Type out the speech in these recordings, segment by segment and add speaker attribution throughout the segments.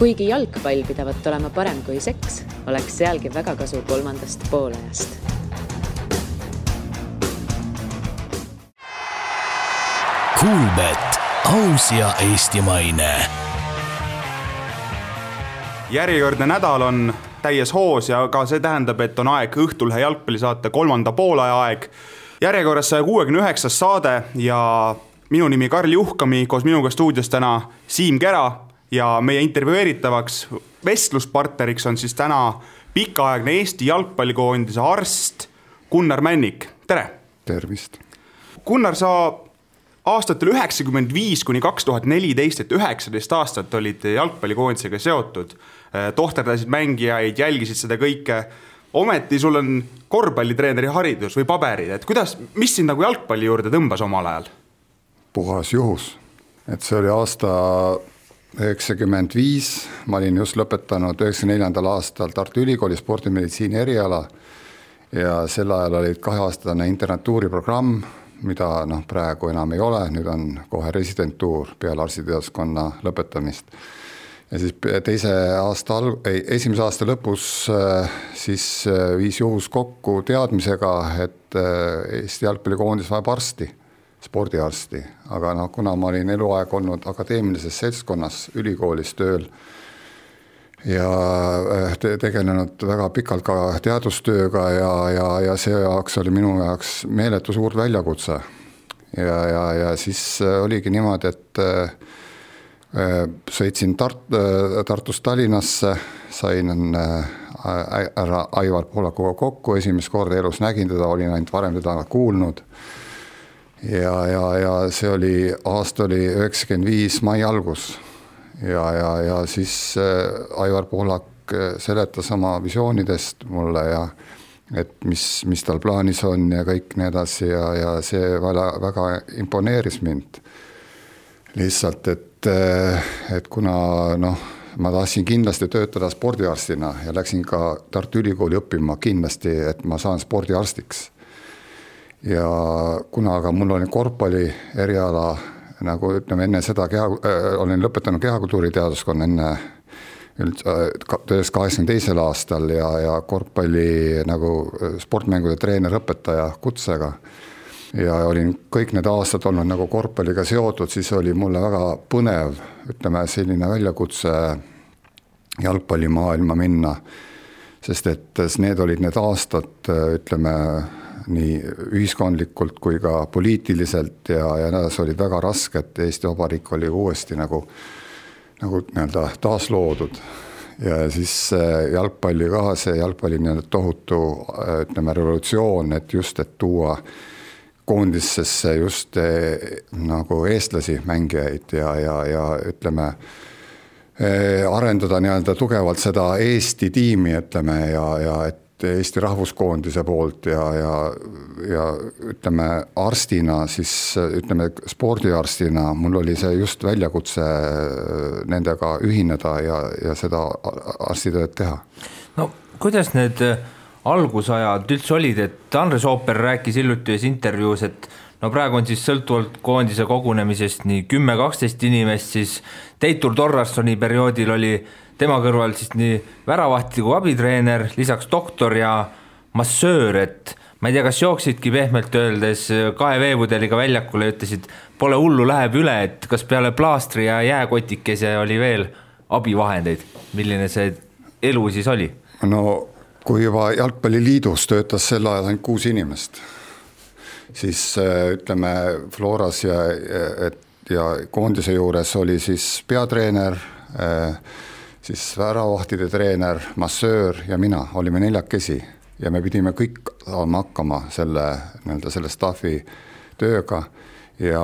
Speaker 1: Kuigi jalgpall pidavat olema parem kui seks, oleks sealgi väga kasu 3. poolajast.
Speaker 2: Kuulbet, aus ja eestimaine.
Speaker 3: Järjekordne nädal on täies hoos ja ka see tähendab, et on aeg Õhtulhe jalgpallisaate 3. poolaja aeg. Järjekorras 169. saade ja minu nimi Karl Juhkami, koos minuga stuudios täna Siim Kera ja meie intervjueeritavaks vestluspartneriks on siis täna pikaaegne Eesti jalgpallikoondise arst Gunnar Männik. Tere!
Speaker 4: Tervist!
Speaker 3: Gunnar, sa aastatel 1995 kuni 2014, et 19 aastat olid jalgpallikoondisega seotud, tohterdasid mängijaid, jälgisid seda kõike. Ometi sul on korvpallitreeneri haridus või paberid, et mis sind nagu jalgpalli juurde tõmbas omal ajal?
Speaker 4: Puhas juhus, et see oli aasta 95, ma olin just lõpetanud 94. aastal Tartu Ülikooli spordimeditsiini eriala ja sel ajal olid 2-aastane internatuuriprogramm, mida praegu enam ei ole, nüüd on kohe residentuur peale arstiteaduskonna lõpetamist. Ja siis esimese aasta lõpus siis viis juhus kokku teadmisega, et Eesti jalgpallikoondis vajab arsti, spordiarsti, aga kuna ma olin eluaeg olnud akadeemilises seltskonnas ülikoolis tööl ja tegelenud väga pikalt ka teadustööga ja see jaoks oli minu jaoks meeletu suur väljakutse. Ja siis oligi niimoodi, et sõitsin Tartust Tallinnasse, sain ära Aivar Pohlakuga kokku, esimest korda elus nägin teda, olin ainult varem teda kuulnud. Ja see aasta oli 95 mai algus ja siis Aivar Pohlak seletas oma visioonidest mulle ja et mis tal plaanis on ja kõik nii edasi ja see väga imponeeris mind lihtsalt, et kuna ma tahtsin kindlasti töötada spordiarstina ja läksin ka Tartu Ülikooli õppima kindlasti, et ma saan spordiarstiks. Ja kuna aga mul oli korvpalli eriala, nagu ütleme enne seda, olin lõpetanud kehakultuuri teaduskonna enne 1982. aastal ja korvpalli nagu sportmängude treener õpetaja kutsega ja olin kõik need aastad olnud nagu korvpalliga seotud, siis oli mulle väga põnev, ütleme selline väljakutse jalgpallimaailma minna, sest et need olid need aastad, ütleme nii ühiskondlikult kui ka poliitiliselt ja need olid väga rasked, Eesti Vabariik oli uuesti nagu taasloodud ja siis jalgpalli ka, see jalgpalli tohutu ütleme revolutsioon, et tuua koondissesse just nagu eestlasi mängijaid ja ütleme arendada tugevalt seda Eesti tiimi, ütleme ja et Eesti rahvuskoondise poolt ja ütleme arstina, siis ütleme spordiarstina, mul oli see just väljakutse nendega ühineda ja seda arstitööd teha.
Speaker 5: No kuidas need algusajad üldse olid, et Andres Ooper rääkis hiljuti intervjuus, et praegu on siis sõltuvalt koondise kogunemisest nii 10-12 inimest, siis Teitur Torrassoni perioodil oli tema kõrval siis nii väravahti kui abitreener, lisaks doktor ja massöör, et ma ei tea, kas jooksidki pehmelt öeldes 2 veepudeliga väljakule ja ütlesid, pole hullu, läheb üle, et kas peale plaastri ja jääkotikese oli veel abivahendeid, milline see elu siis oli?
Speaker 4: No kui juba Jalgpalliliidus töötas sel ajal ainult 6 inimest, siis ütleme Floras ja koondise juures oli siis peatreener, siis väravahtide treener, massöör ja mina olime 4 ja me pidime kõik saama hakkama selle staffi tööga ja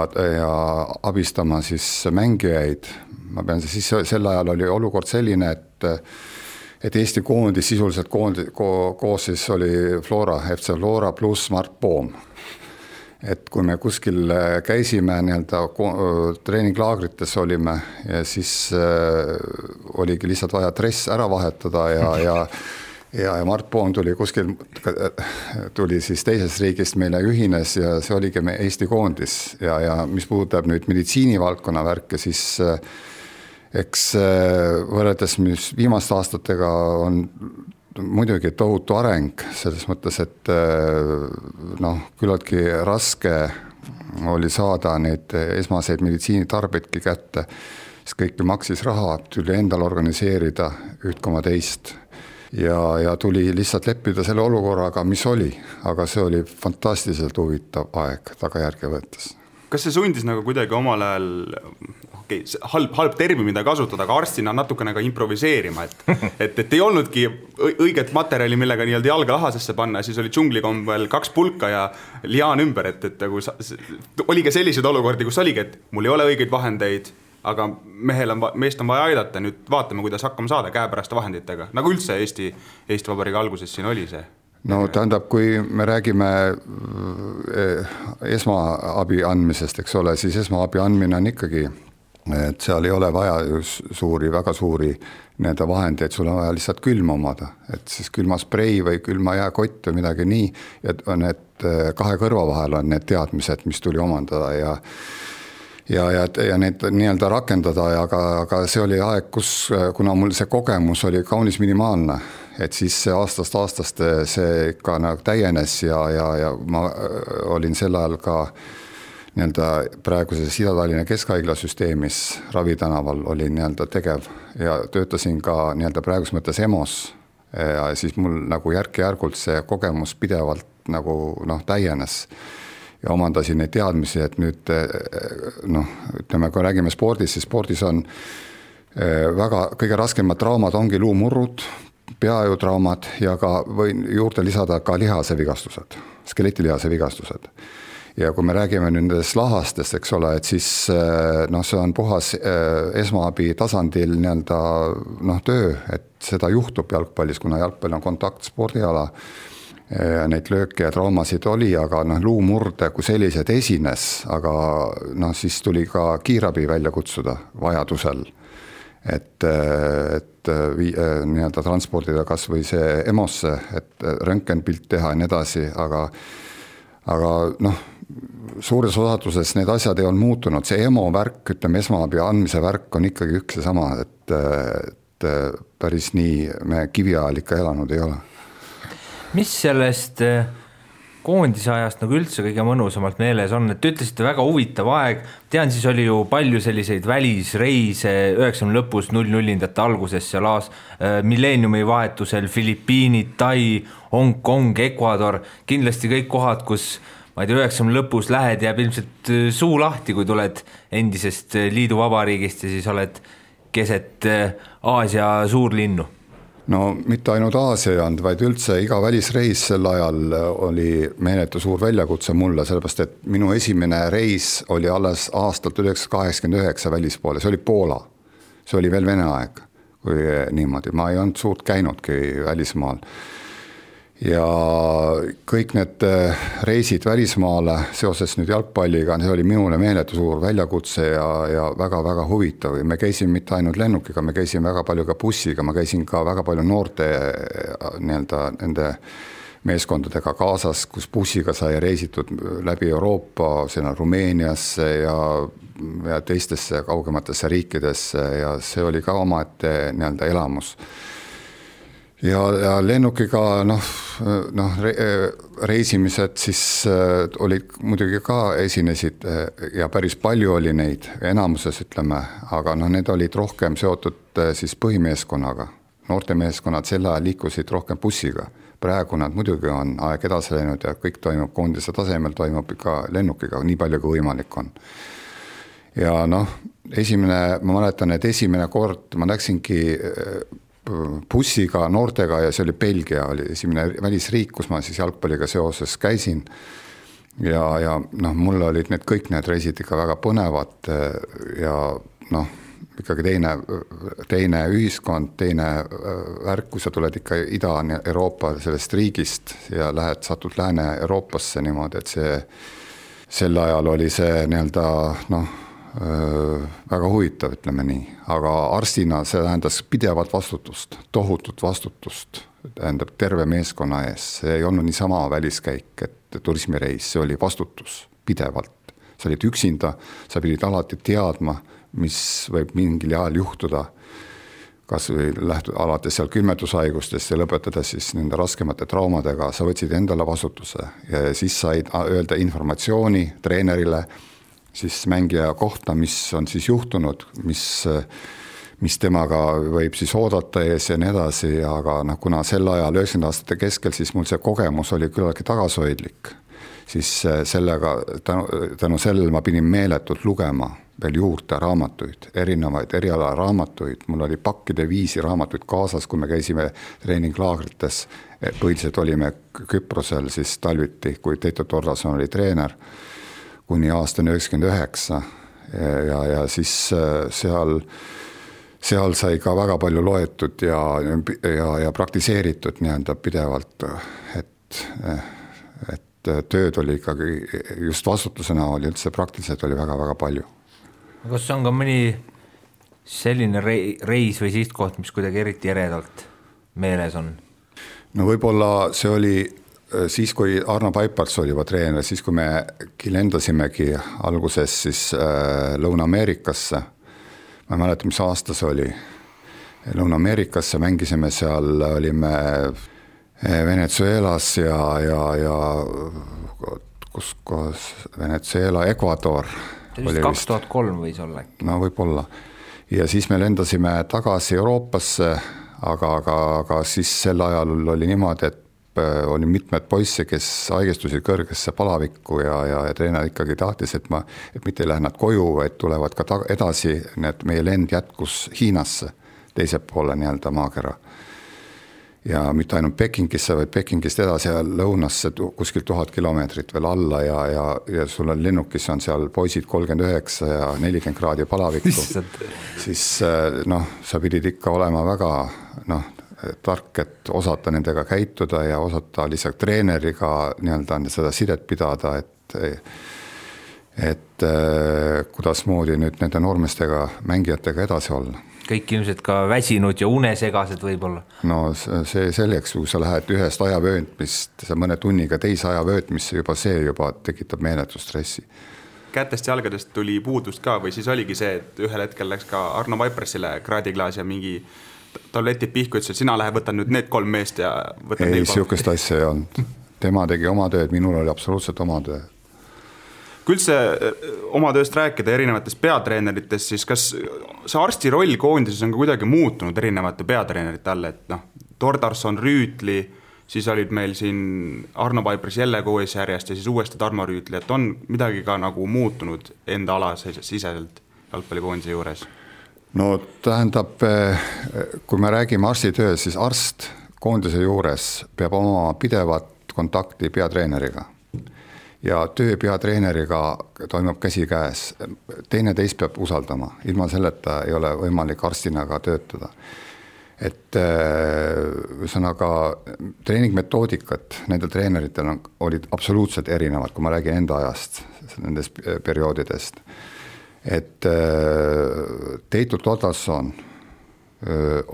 Speaker 4: abistama siis mängijaid. Ma pean siis sel ajal oli olukord selline, et Eesti koondis sisuliselt koos siis oli Flora, FC Flora pluss Mart Poom. Et kui me kuskil käisime treeninglaagrites olime ja siis oligi lihtsalt vaja dress ära vahetada ja Mart Poom tuli siis teisest riigist meile ühines ja see oligi Eesti koondis ja mis puudutab nüüd meditsiinivaldkonna värke, siis eks võrreldes viimaste aastatega on muidugi tohutu areng selles mõttes, et küllaltki raske oli saada neid esmaseid meditsiinitarbeidki kätte, siis kõik maksis raha, tuli endal organiseerida üht koma teist ja tuli lihtsalt leppida selle olukorraga, mis oli, aga see oli fantastiliselt huvitav aeg tagajärge võttes.
Speaker 3: Kas see sundis nagu kuidagi omal ajal, halb termin, mida kasutada, aga arstina natukene ka improviseerima, et ei olnudki õiget materjali, millega nii-öelda jalga lahasesse panna, siis oli džunglikombel 2 pulka ja liaan ümber, et oli ka selliseid olukordi, kus oligi, et mul ei ole õigeid vahendeid, aga meest on vaja aidata, nüüd vaatame, kuidas hakkama saada käepäraste vahenditega, nagu üldse Eesti Vabariigi alguses siin oli see.
Speaker 4: No tähendab, kui me räägime esmaabi andmisest, eks ole, siis esmaabi andmine on ikkagi, et seal ei ole vaja väga suuri need vahendeid, sul on vaja lihtsalt külma omada, et siis külmasprei või külma jääkott või midagi nii, et need 2 kõrva vahel on need teadmised, mis tuli omandada ja need nii-öelda rakendada, aga see oli aeg, kuna mul see kogemus oli kaunis minimaalne, et siis aastast see ikka nagu täienes ja ma olin sel ajal ka nii-öelda praeguses Ida-Tallinna Keskhaigla süsteemis Ravitanaval olin nii-öelda tegev ja töötasin ka nii-öelda praegus mõttes EMO-s ja siis mul nagu järk-järgult see kogemus pidevalt nagu täienes ja omandasin neid teadmisi, et nüüd ütleme, kui räägime spordist, siis spordis on kõige raskemad traumad ongi luumurrud, peajutraumad ja ka võin juurde lisada ka lihasevigastused, skeletilihase vigastused. Ja kui me räägime nendest lahastest, eks ole, et siis see on puhas esmaabi tasandil nii-öelda töö, et seda juhtub jalgpallis, kuna jalgpall on kontaktspordiala. Neid lööke ja traumasid oli, aga luumurde kui sellised esines, aga siis tuli ka kiirabi välja kutsuda vajadusel, et nii-öelda transpordida kas või see EMO-sse, et röntgenpilt teha ja nii edasi, aga suures osatuses need asjad ei olnud muutunud, see EMO värk, ütleme esmaabi andmise värk on ikkagi üks ja sama, et päris nii me kiviajal ikka elanud ei ole.
Speaker 5: Mis sellest koondise ajast nagu üldse kõige mõnusamalt meeles on, et ütlesite väga huvitav aeg, tean, siis oli ju palju selliseid välisreise 90 lõpus 00-ndate alguses seal milleeniumi vahetusel Filipiinid, Tai, Hong Kong, Ecuador, kindlasti kõik kohad, kus ma ei tea, 90 lõpus lähed, jääb ilmselt suu lahti, kui tuled endisest liiduvabariigist ja siis oled keset Aasia suurlinnu.
Speaker 4: No mitte ainult Aasia ei olnud, vaid üldse iga välisreis sel ajal oli meeletu suur väljakutse mulle, sellepärast et minu esimene reis oli alles aastalt 1989 välispoole, see oli Poola, see oli veel Vene aeg, kui niimoodi, ma ei olnud suurt käinudki välismaal. Ja kõik need reisid välismaale seoses nüüd jalgpalliga, see oli minule meeletu suur väljakutse ja väga-väga huvitav. Me käisime mitte ainult lennukiga, me käisime väga palju ka bussiga, ma käisin ka väga palju noorte nende meeskondadega kaasas, kus bussiga sai reisitud läbi Euroopa, sinna Rumeeniasse ja teistesse kaugematesse riikidesse ja see oli ka omaette nii-öelda elamus. Ja lennukiga reisimised siis olid muidugi ka esinesid ja päris palju oli neid enamuses ütleme, aga need olid rohkem seotud siis põhimeeskonnaga. Noortemeeskonnad selle ajal liikusid rohkem bussiga. Praegu nad muidugi on aeg edasi läinud ja kõik toimub koondise tasemel, toimub ikka lennukiga, nii palju kui võimalik on. Ja ma mäletan, et esimene kord ma läksingi bussiga noortega ja see oli Belgia, oli esimene välisriik, kus ma siis jalgpalliga seoses käisin ja mul olid kõik need reisid ikka väga põnevad ja ikkagi teine ühiskond, teine värk, kui sa tuled ikka Ida-Euroopa sellest riigist ja satud Lääne-Euroopasse niimoodi, et sel ajal oli see nii-öelda väga huvitav, ütleme nii, aga arstina see tähendas pidevat vastutust, tohutut vastutust, tähendab terve meeskonna ees, see ei olnud niisama väliskäik, et turismireis, see oli vastutus pidevalt, sa olid üksinda, sa pidid alati teadma, mis võib mingil ajal juhtuda, kas või alates seal külmetushaigustest ja lõpetades siis nende raskemate traumadega, sa võtsid endale vastutuse ja siis said öelda informatsiooni treenerile siis mängija kohta, mis on siis juhtunud, mis temaga võib siis oodata ees ja nii edasi, aga kuna sel ajal 90 aastate keskel siis mul see kogemus oli küllaltki tagasihoidlik, siis sellega, tänu sellele ma pidin meeletult lugema veel juurde raamatuid, erinevaid eriala raamatuid, mul oli pakkide viisi raamatuid kaasas, kui me käisime treeninglaagrites, põhiliselt olime Küprosel siis talviti, kui Teito Tordason oli treener, kuni aasta 99 ja siis seal sai ka väga palju loetud ja praktiseeritud nii-öelda pidevalt, et tööd oli ikkagi just vastutusena oli üldse praktiliselt oli väga-väga palju.
Speaker 5: Kas on ka mõni selline reis või sihtkoht, mis kuidagi eriti eredalt meeles on?
Speaker 4: No võib-olla see oli siis, kui Arno Paipars oli juba treener, siis kui me lendasimegi alguses siis Lõuna-Ameerikasse, ma ei mäleta, mis aasta see oli, Lõuna-Ameerikasse mängisime seal, olime Venezuelas ja kus Venezuela, Ecuador.
Speaker 5: See 2003 võis olla.
Speaker 4: No võib-olla. Ja siis me lendasime tagasi Euroopasse, aga siis sel ajal oli niimoodi, et oli mitmed poisse, kes haigestusid kõrgesse palavikku ja treener ikkagi tahtis, et mitte ei lähe nad koju, vaid tulevad ka edasi, need meie lend jätkus Hiinasse, teise poole nii-öelda maakera. Ja mitte ainult Pekingisse, vaid Pekingist edasi ja lõunasse kuskil 1000 kilomeetrit veel alla ja sul on lennukis on seal poisid 39 ja 40 kraadi palavikku. Siis sa pidid ikka olema väga tark, et osata nendega käituda ja osata lihtsalt treeneriga nii-öelda seda sidet pidada, et kuidas moodi nüüd nende noormestega, mängijatega edasi olla.
Speaker 5: Kõik ilmselt ka väsinud ja unesegased võib-olla.
Speaker 4: No see selleks, kui sa lähed ühest ajavöötmist, sa mõne tunniga teise ajavöötmisse, see juba tekitab meeletu stressi.
Speaker 3: Kätest jalgadest tuli puudust ka või siis oligi see, et ühel hetkel läks ka Arno Vaiprasile kraadiklaas ja mingi tabletid pihku, ütles, et sina lähe võtan nüüd need 3 meest ja võtan
Speaker 4: ei, siukest asja ei olnud. Tema tegi oma tööd, minul oli absoluutselt oma töö.
Speaker 3: Kui üldse oma tööst rääkida erinevatest peatreeneritest, siis kas see arsti roll koondises on ka kuidagi muutunud erinevate peatreenerite all, et Tordarson, Rüütli, siis olid meil siin Arno Paipras jälle koos järjest ja siis uuesti Tarmo Rüütli, et on midagi ka nagu muutunud enda ala siseselt jalgpallikoondise juures?
Speaker 4: No tähendab, kui me räägime arsti töös, siis arst koondise juures peab oma pidevat kontakti peatreeneriga. Ja töö peatreeneriga toimub käsi käes. Teine teist peab usaldama. Ilma selleta ei ole võimalik arstina ka töötada. Et ühesõnaga treeningmetoodikat nendel treeneritel olid absoluutselt erinevad, kui ma räägin enda ajast, nendest perioodidest. Et Teito Tordason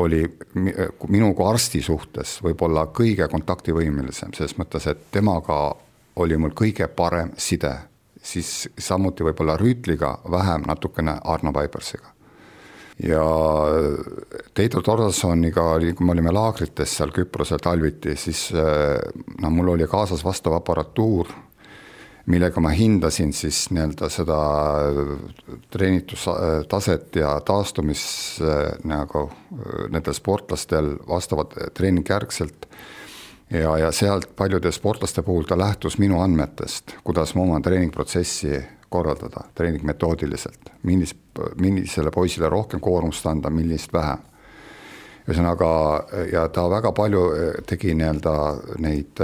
Speaker 4: oli minu kui arsti suhtes võib-olla kõige kontaktivõimelisem, selles mõttes, et temaga oli mul kõige parem side, siis samuti võib-olla Rüütliga, vähem natukene Arno Paiparsiga. Ja Teito Tordasoniga, kui me olime laagrites seal Küprosel talviti, siis mul oli kaasas vastav aparatuur, millega ma hindasin siis nii-öelda seda treenitustaset ja taastumis nagu nendel sportlastel vastavad treeningjärgselt. Ja sealt paljude sportlaste puhul ta lähtus minu andmetest, kuidas ma oma treeningprotsessi korraldada, treeningmetoodiliselt, millisele poisile rohkem koormust anda, millist vähem. Ühesõnaga, ja ta väga palju tegi nii-öelda neid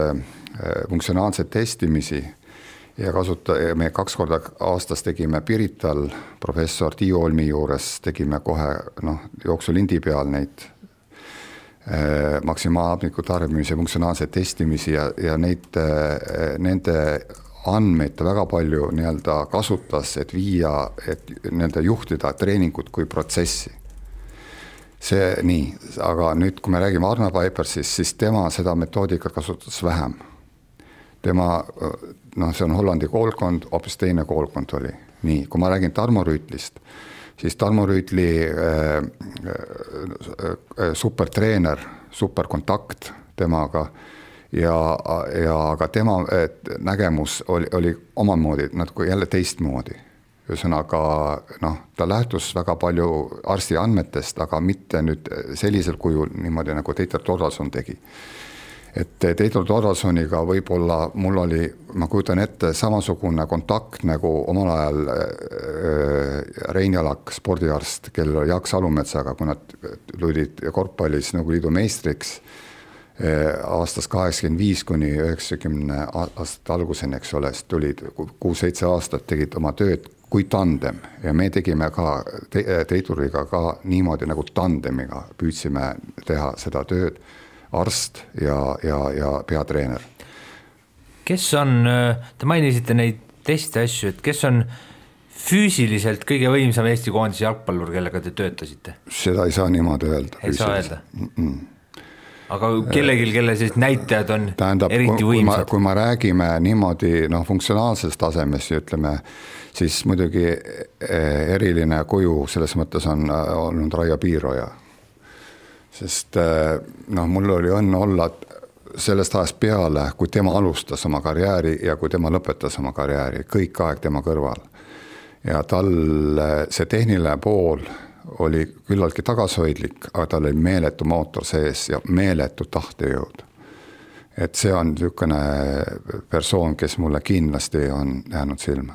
Speaker 4: funktsionaalseid testimisi ja me 2 korda aastas tegime Pirital professor Tiiu Olmi juures, tegime kohe jooksulindi peal neid maksimaalmiku tarbimise funktsionaalseid testimisi ja nende andmeid väga palju nii-öelda kasutas, et nende juhtida treeningut kui protsessi. See nii, aga nüüd, kui me räägime Arno Paiparsist, siis tema seda metoodikat kasutas vähem. Tema, see on Hollandi koolkond, hoopis teine koolkond oli. Nii, kui ma räägin Tarmo Rüütlist, siis Tarmo Rüütli supertreener, superkontakt temaga ja aga tema nägemus oli omamoodi natuke jälle teistmoodi. Ühesõnaga, ta lähtus väga palju arsti andmetest, aga mitte nüüd sellisel kujul niimoodi, nagu Teitur Torvalson tegi. Et Teitur Torvalsoniga võib-olla mul oli, ma kujutan ette, samasugune kontakt nagu omal ajal Rein Jalak, spordiarst, kellel oli Jaak Salumetsaga, kui nad tulid korvpallis Nõukogude Liidu meistriks aastast 85 kuni 90 aastat alguseni, eks ole, tulid 6-7 aastat, tegid oma tööd kui tandem ja me tegime ka Teituriga ka niimoodi nagu tandemiga, püüdsime teha seda tööd, arst ja peatreener.
Speaker 5: Kes on, te mainisite neid teiste asju, et kes on füüsiliselt kõige võimsam Eesti koondise jalgpallur, kellega te töötasite?
Speaker 4: Seda ei saa niimoodi öelda.
Speaker 5: Ei saa öelda? Aga kellegil, kelle siis näitajad on eriti võimsad?
Speaker 4: Kui ma räägime niimoodi funktsionaalsest tasemest, ütleme, siis muidugi eriline kuju selles mõttes on olnud Raio Piiroja. Sest mul oli õnne olla sellest ajast peale, kui tema alustas oma karjääri ja kui tema lõpetas oma karjääri, kõik aeg tema kõrval. Ja tal see tehniline pool oli küllaltki tagasihoidlik, aga tal oli meeletu mootor sees ja meeletu tahtejõud. Et see on niisugune persoon, kes mulle kindlasti on jäänud silma.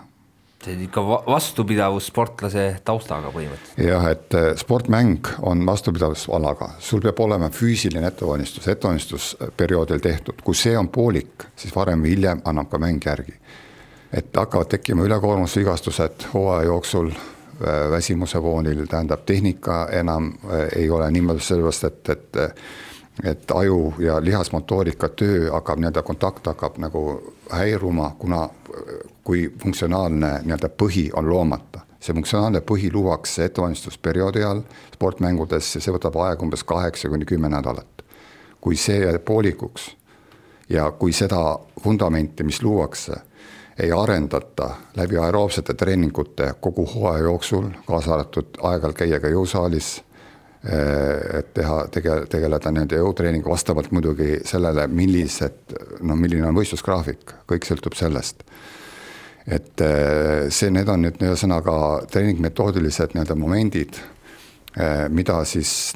Speaker 5: See on ikka vastupidavus sportlase taustaga põhimõtteliselt.
Speaker 4: Jah, et sportmäng on vastupidavusalaga. Sul peab olema füüsiline ettevalmistusperioodil tehtud. Kui see on poolik, siis varem või hiljem annab ka mäng järgi. Et hakkavad tekkima ülekoormusvigastused hooaja jooksul, väsimuse foonil, tähendab tehnika enam ei ole niimoodi sellepärast, et aju ja lihasmotoorika töö hakkab, kontakt hakkab nagu häiruma, kuna kui funktsionaalne põhi on loomata. See funktsionaalne põhi luuakse ettevalmistusperioodi all sportmängudes ja see võtab aeg umbes 8-10 nädalat. Kui see jääb poolikuks ja kui seda fundamenti, mis luuakse, ei arendata läbi aeroobsete treeningute kogu hooaja jooksul, kaasa arvatud aeg-ajalt käia ka jõusaalis, et tegeleda nende jõutreeningu vastavalt muidugi sellele, milline on võistlusgraafik, kõik sõltub sellest. Et need on nüüd sõnaga treeningmetoodilised momendid, mida siis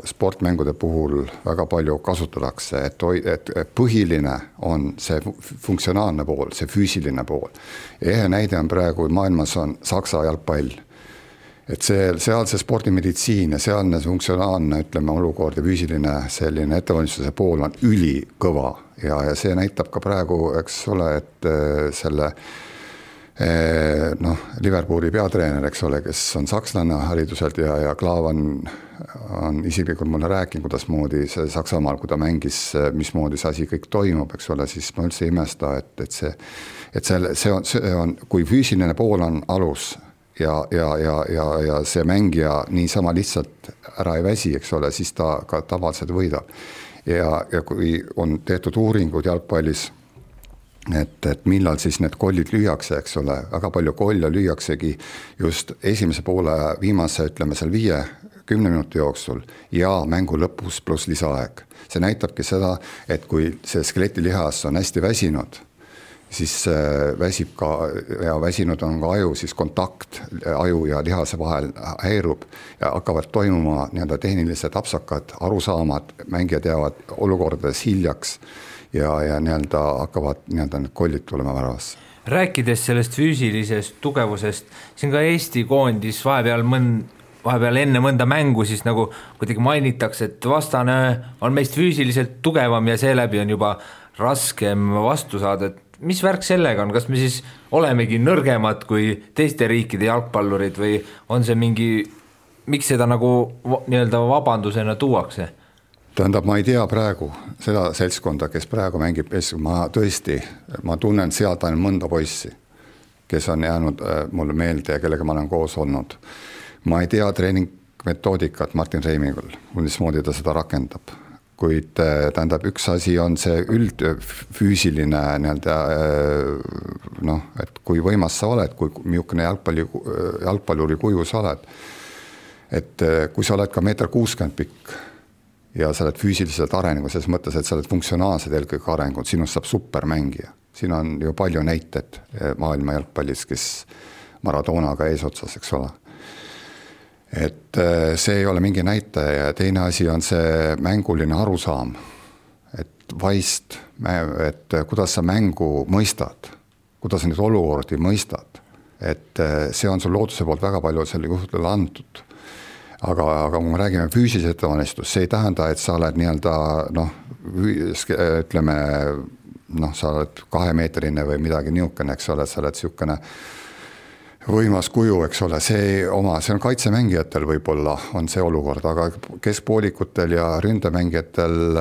Speaker 4: sportmängude puhul väga palju kasutatakse, et põhiline on see funktsionaalne pool, see füüsiline pool. Ehe näide on praegu maailmas on Saksa jalgpall. Et seal see spordimeditsiin ja sealne funktsionaalne, olukord ja füüsiline selline ettevalmistuse pool on ülikõva ja see näitab ka praegu, eks ole, et selle Liverpooli peatreener, eks ole, kes on sakslane hariduselt ja Klaav on isiklikult mulle rääkinud, kuidas moodi see Saksamaal, kui ta mängis, mismoodi see asi kõik toimub, eks ole, siis ma üldse ei imesta, et see on, kui füüsiline pool on alus ja see mängija niisama lihtsalt ära ei väsi, eks ole, siis ta ka tavaliselt võidab. Ja kui on tehtud uuringud jalgpallis, et millal siis need kollid lüüakse, eks ole, väga palju kolle lüüaksegi just esimese poole viimase, seal 5-10 minuti jooksul ja mängu lõpus pluss lisaaeg. See näitabki seda, et kui see skeletilihas on hästi väsinud, siis väsib ka, ja väsinud on ka aju, siis kontakt aju ja lihase vahel häirub ja hakkavad toimuma tehnilised apsakad, arusaamad, mängijad jäävad olukordades hiljaks ja hakkavad need kollid tulema väravasse.
Speaker 5: Rääkides sellest füüsilisest tugevusest, siin ka Eesti koondis vahepeal enne mõnda mängu siis nagu kuidagi mainitakse, et vastane on meist füüsiliselt tugevam ja seeläbi on juba raskem vastu saada, et mis värk sellega on, kas me siis olemegi nõrgemad kui teiste riikide jalgpallurid või on see miks seda nagu vabandusena tuuakse?
Speaker 4: Tähendab, ma ei tea praegu seda seltskonda, kes praegu mängib, ma tunnen sealt ainult mõnda poissi, kes on jäänud mulle meelde ja kellega ma olen koos olnud. Ma ei tea treeningmetoodikat Martin Reimingul, mismoodi ta seda rakendab. kuid tähendab, üks asi on see üldfüüsiline noh, et kui võimas sa oled, kui miukene jalgpalluri kuju sa oled, et kui sa oled ka 1,60 m pikk ja sa oled füüsiliselt arenenud, selles mõttes, et sa oled funktsionaalsed eelkõige arenenud, sinust saab supermängija. Siin on ju palju näited maailma jalgpallis, kes Maradonaga eesotsas, eks ole. Et see ei ole mingi näitaja ja teine asi on see mänguline arusaam, et vaist, et kuidas sa mängu mõistad, kuidas sa neid olukordi mõistad, et see on sul looduse poolt väga palju selle juhtudele antud. Aga kui me räägime füüsilise ettevalmistus, see ei tähenda, et sa oled ütleme, sa oled 2-meetrine või midagi niukene, eks ole, sa oled siukene võimas kuju, eks ole, see on kaitsemängijatel võib-olla on see olukord, aga keskpoolikutel ja ründemängijatel,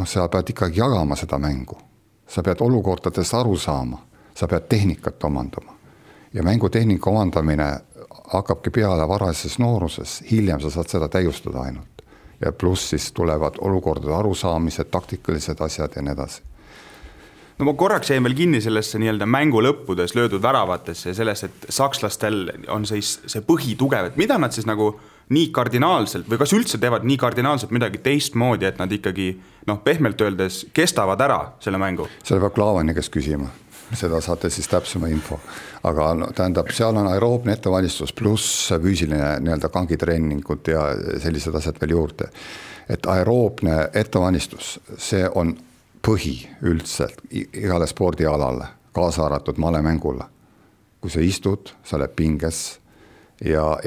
Speaker 4: sa pead ikkagi jagama seda mängu. Sa pead olukordadest aru saama, sa pead tehnikat omandama. Ja mängutehnika omandamine hakkabki peale varases nooruses, hiljem sa saad seda täiustada ainult. Ja pluss siis tulevad olukordade arusaamised, taktikalised asjad ja nii edasi.
Speaker 3: No ma korraks jäin veel kinni sellesse nii-öelda mängu lõppudes löödud väravatesse ja sellest, et sakslastel on see põhi tugev, et mida nad siis nagu nii kardinaalselt või kas üldse teevad nii kardinaalselt midagi teistmoodi, et nad ikkagi pehmelt öeldes kestavad ära selle mängu?
Speaker 4: Selle peab Klaavani kes küsima, seda saate siis täpsema info. Aga tähendab, seal on aeroobne ettevalmistus pluss füüsiline nii-öelda kangitreeningud ja sellised asjad veel juurde. Et aeroobne ettevalmistus, see on põhi üldselt igale spordialale, kaasa arvatud malemängule. Kui sa istud, sa oled pinges ja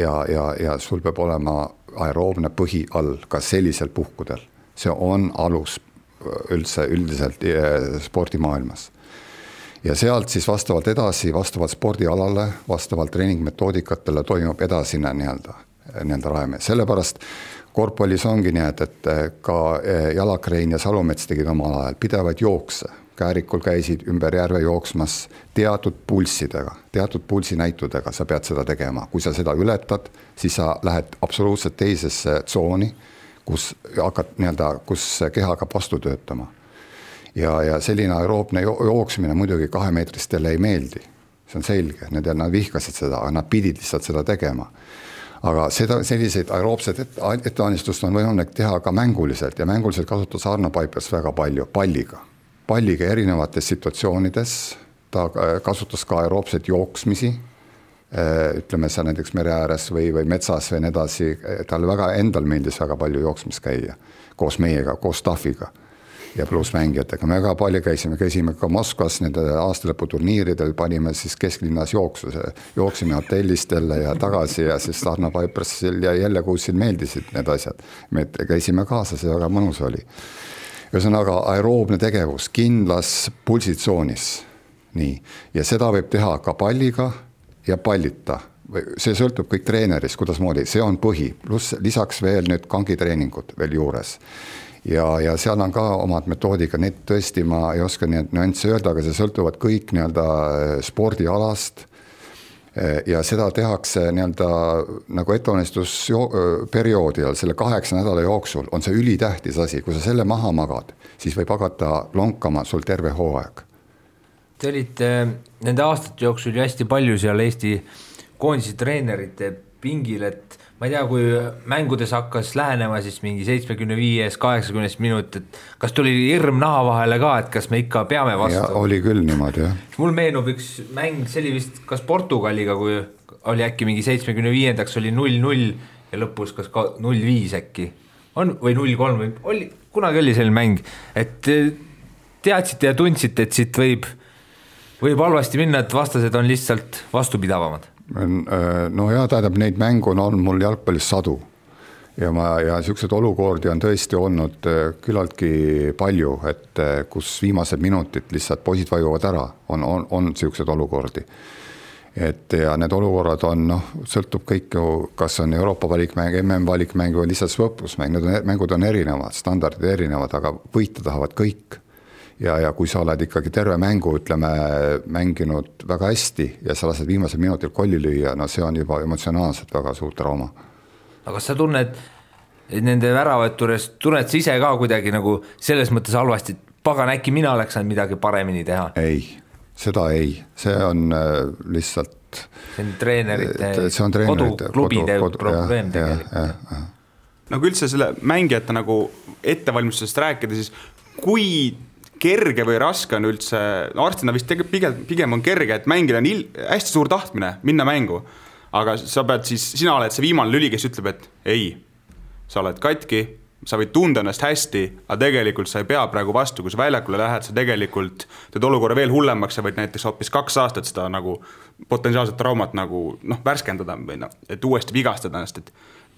Speaker 4: sul peab olema aeroobne põhi all ka sellisel puhkudel. See on alus üldiselt spordimaailmas. Ja sealt siis vastavalt edasi, vastavalt spordialale, vastavalt treeningmetoodikatele toimub edasine nii-öelda rajame. Sellepärast korvpallis ongi nii, et ka Jalakrein ja Salumets tegid omal ajal pidevaid jookse. Käärikul käisid ümber järve jooksmas teatud pulssidega, teatud pulsinäitudega sa pead seda tegema. Kui sa seda ületad, siis sa lähed absoluutselt teisesse tsooni, kus keha hakkab vastu töötama. Ja selline aeroobne jooksmine muidugi 2-meetristele ei meeldi. See on selge, nad vihkasid seda, aga nad pidid lihtsalt seda tegema. Aga selliseid aeroobsed ettevalmistust on võimalik teha ka mänguliselt ja mänguliselt kasutas Arno Paipers väga palju palliga erinevates situatsioonides, ta kasutas ka aeroobset jooksmisi, ütleme see näiteks mere ääres või metsas või nii edasi, tal väga endal meeldis väga palju jooksmis käia koos meiega, koos staffiga ja pluss mängijatega. Me väga palju käisime ka Moskvas nende aastalõputurniiridel, panime siis kesklinnas jooksime hotellistele ja tagasi ja siis Arno Paipersil ja jälle kuusil meeldisid need asjad. Me käisime kaasas ja väga mõnus oli. Ühesõnaga aeroobne tegevus kindlas pulsitsoonis. Nii. Ja seda võib teha ka palliga ja pallita. See sõltub kõik treenerist, kuidas moodi. See on põhi. Plus lisaks veel nüüd kangitreeningud veel juures. Ja seal on ka omad metoodika, need tõesti ma ei oska nii nüansse öelda, aga see sõltuvad kõik nii-öelda spordialast ja seda tehakse nii-öelda nagu ettevalmistusperioodil, selle 8 nädala jooksul on see ülitähtis asi, kui sa selle maha magad, siis võib hakata lonkama sul terve hooaeg.
Speaker 5: Te olite nende aastate jooksul ju hästi palju seal Eesti koondise treenerite pingil, et ma ei tea, kui mängudes hakkas lähenema siis mingi 75-80 minut, et kas tuli hirm naha vahele ka, et kas me ikka peame vastu?
Speaker 4: Ja oli küll niimoodi, jah.
Speaker 5: Mul meenub üks mäng, see oli vist kas Portugaliga, kui oli äkki mingi 75-ndaks oli 0-0 ja lõpus kas 0-5 äkki või 0-3 või kunagi oli selline mäng, et teadsite ja tundsite, et siit võib halvasti minna, et vastased on lihtsalt vastupidavamad.
Speaker 4: No ja tähendab, neid mängu on mul jalgpallis sadu ja siuksed olukordi on tõesti olnud küllaltki palju, et kus viimased minutid lihtsalt poisid vajuvad ära, on siuksed olukordi. Ja need olukorrad on, sõltub kõik ju, kas on Euroopa valikmäng, MM valikmäng või lihtsalt võplusmäng, need mängud on erinevad, standardid erinevad, aga võita tahavad kõik. Ja kui sa oled ikkagi terve mängu, ütleme, mänginud väga hästi ja sa lased viimasel minutil kolli lüüa, see on juba emotsionaalselt väga suur trauma.
Speaker 5: Aga kas sa tunned nende väravõtures tunned sa ise ka kuidagi nagu selles mõttes halvasti, et pagan, äkki mina oleks saanud midagi paremini teha?
Speaker 4: Ei, seda ei, see on lihtsalt
Speaker 5: see on treenerite, koduklubide probleem tegelikult.
Speaker 3: Nagu üldse selle mängijate nagu ettevalmistusest rääkida, siis kui kerge või raske on üldse, arstina vist pigem on kerge, et mängida on hästi suur tahtmine minna mängu, aga sa pead siis, sina oled see viimane lüli, kes ütleb, et ei, sa oled katki, sa võid tunda ennast hästi, aga tegelikult sa ei pea praegu vastu, kui sa väljakule lähed, sa tegelikult teed olukorra veel hullemaks, sa võid näiteks hoopis 2 aastat seda nagu potentsiaalset traumat nagu värskendada või et uuesti vigastada ennast, et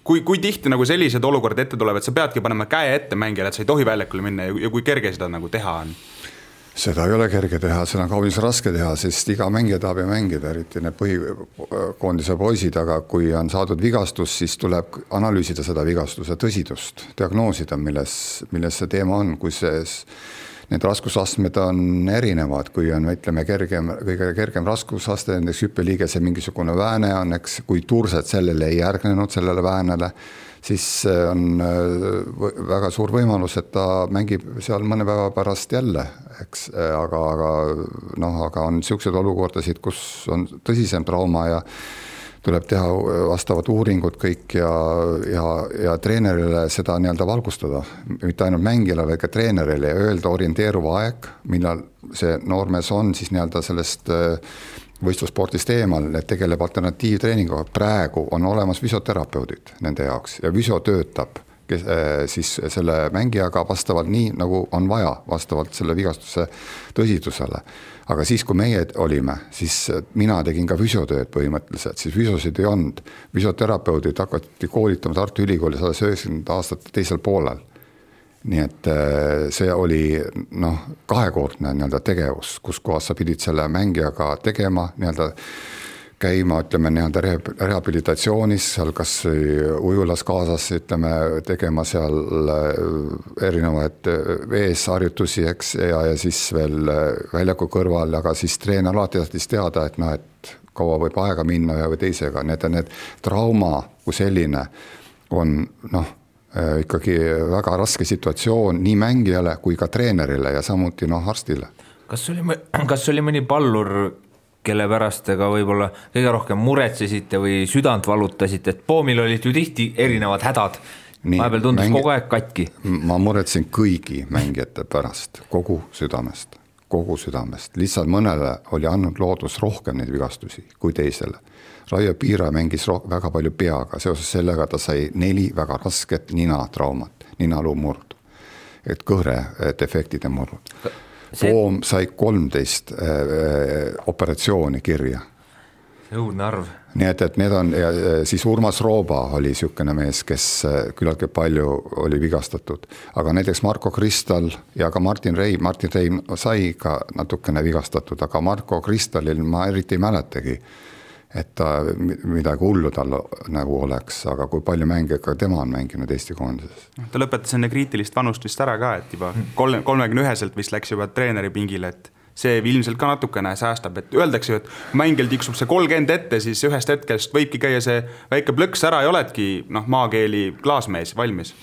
Speaker 3: kui tihti nagu sellised olukorrad ette tulevad, et sa peadki panema käe ette mängijale, et sa ei tohi väljakule minna ja kui kerge seda nagu teha on?
Speaker 4: Seda ei ole kerge teha, seda on kaunis raske teha, sest iga mängija tahab mängida, eriti need põhikoondise poisid, aga kui on saadud vigastus, siis tuleb analüüsida seda vigastuse tõsidust, diagnoosida, milles see teema on, kui need raskusastmed on erinevad, kui on, ütleme, kõige kergem raskusaste, näiteks hüppeliigese mingisugune vääne on, eks, kui tursed sellele ei järgnenud, sellele väänele, siis on väga suur võimalus, et ta mängib seal mõne päeva pärast jälle, eks, aga on niisuguseid olukordasid, kus on tõsisem trauma ja tuleb teha vastavad uuringud kõik ja treenerile seda nii-öelda valgustada, mitte ainult mängijale, vaid ka treenerile ja öelda orienteeruva aeg, millal see noormees on siis nii-öelda sellest võistlusspordist eemal, et tegeleb alternatiivtreeninguga. Praegu on olemas füsioterapeudid nende jaoks ja füsio töötab siis selle mängijaga vastavalt nii, nagu on vaja, vastavalt selle vigastuse tõsidusele. Aga siis, kui meie olime, siis mina tegin ka füsiotööd põhimõtteliselt, siis füsiosid ei olnud. Füsioterapeudid hakati koolitama Tartu Ülikoolis 90 aastate teisel poolel. Nii et see oli kahekordne nii-öelda tegevus, kus kohas sa pidid selle mängijaga tegema, nii-öelda käima, ütleme, nii-öelda rehabilitatsioonis, seal kas ujulas kaasas, ütleme, tegema seal erinevaid veesharjutusi, eks, ja siis veel väljaku kõrval, aga siis treener alati tahtis teada, et kaua võib aega minna või teisega. Need trauma kui selline on ikkagi väga raske situatsioon nii mängijale kui ka treenerile ja samuti arstile.
Speaker 5: Kas oli mõni pallur, kelle pärast te ka võib-olla kõige rohkem muretsesite või südant valutasite, et Poomil olid ju tihti erinevad hädad, vahepeal tundus kogu aeg katki?
Speaker 4: Ma muretsen kõigi mängijate pärast, kogu südamest, lihtsalt mõnele oli andnud loodus rohkem neid vigastusi kui teisele. Raio Piira mängis väga palju peaga, seoses sellega ta sai 4 väga rasket ninatraumat, ninaluu murdu, et kõhre defektide murud. Poom sai 13 operatsiooni kirja.
Speaker 5: See õudne arv.
Speaker 4: Nii et need on, ja siis Urmas Rooba oli niisugune mees, kes küllaltki palju oli vigastatud. Aga näiteks Marko Kristal ja ka Martin Reim sai ka natukene vigastatud, aga Marko Kristalil ma eriti ei mäletagi, et ta midagi hullu tal nagu oleks, aga kui palju mänge ka tema on mänginud Eesti koondises.
Speaker 3: Ta lõpetas enne kriitilist vanust vist ära ka, et juba 31-selt vist läks juba treeneri pingile, et see ilmselt ka natukene säästab, et öeldakse ju, et mängil tiksub see 30 ette, siis ühest hetkest võibki käia see väike plõks ära ja oledki maakeeli klaasmees valmis.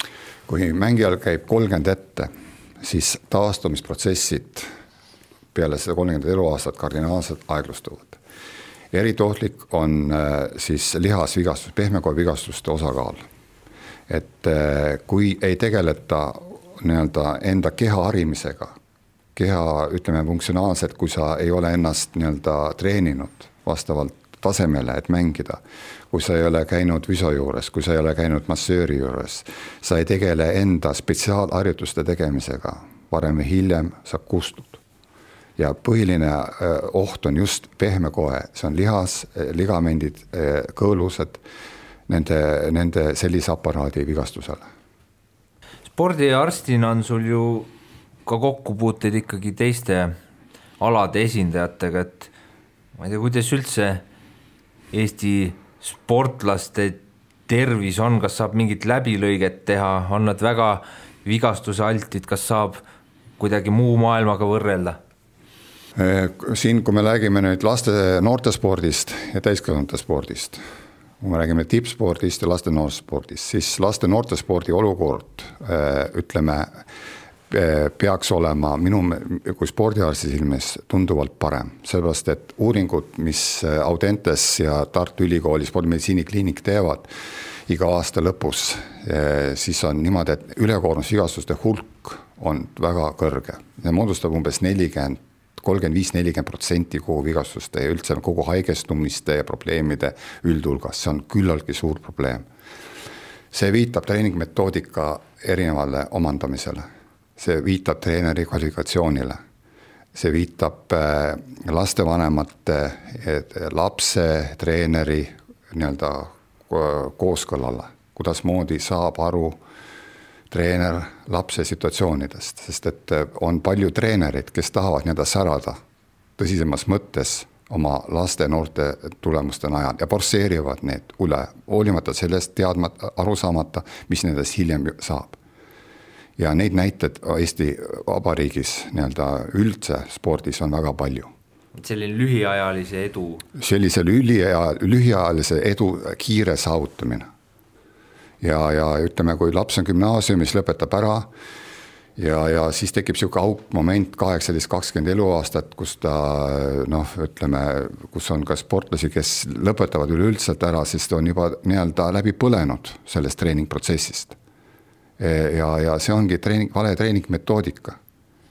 Speaker 4: Kui mängijal käib 30 ette, siis taastumisprotsessid peale seda 30 eluaastat kardinaalselt aeglustuvad. Eritohtlik on siis lihasvigastus, pehmekoevigastuste osakaal. Et kui ei tegeleta nii-öelda enda keha harimisega, keha, ütleme, funktsionaalselt, kui sa ei ole ennast nii-öelda treeninud vastavalt tasemele, et mängida, kui sa ei ole käinud füsio juures, kui sa ei ole käinud massööri juures, sa ei tegele enda spetsiaalharjutuste tegemisega, varem või hiljem sa kustud. Ja põhiline oht on just pehmekoe, see on lihas, ligamendid, kõõlused, nende sellise aparaadi vigastusele.
Speaker 5: Spordiarstina on sul ju ka kokkupuuteid ikkagi teiste alade esindajatega, et ma ei tea, kuidas üldse Eesti sportlaste tervis on, kas saab mingit läbilõiget teha, on nad väga vigastuse altid, kas saab kuidagi muu maailmaga võrrelda?
Speaker 4: Siin, kui me räägime nüüd laste noortespordist ja täiskasvanute spordist, kui me räägime tippspordist ja laste noorspordist, siis laste noortespordi olukord, ütleme, peaks olema minu kui spordiarsti silmis tunduvalt parem, sellepärast et uuringud, mis Audentes ja Tartu Ülikooli spordimeditsiinikliinik teevad iga aasta lõpus, siis on niimoodi, et ülekoormusvigastuste hulk on väga kõrge. See moodustab umbes 35-40% kogu vigastuste ja üldse kogu haigestumiste ja probleemide üldhulgas. See on küllaltki suur probleem. See viitab treeningmetoodika erinevale omandamisele. See viitab treeneri kvalifikatsioonile. See viitab lastevanemate, lapse, treeneri nii-öelda kooskõlale, kuidas moodi saab aru treener lapse situatsioonidest, sest et on palju treenerid, kes tahavad nii-öelda särada tõsisemas mõttes oma laste noorte tulemuste najal ja forsseerivad need üle, hoolimata sellest aru saamata, mis nendest hiljem saab. Ja neid näited Eesti Vabariigis nii-öelda üldse spordis on väga palju.
Speaker 5: Selline lühiajalise edu.
Speaker 4: Sellise lühiajalise edu kiire saavutamine. Ja ütleme, kui laps on gümnaasiumis, lõpetab ära ja siis tekib siuke aukmoment 18-20 eluaastat, kus ta, ütleme, kus on ka sportlasi, kes lõpetavad üleüldselt ära, sest on juba nii-öelda läbi põlenud sellest treeningprotsessist. Ja see ongi vale treeningmetoodika.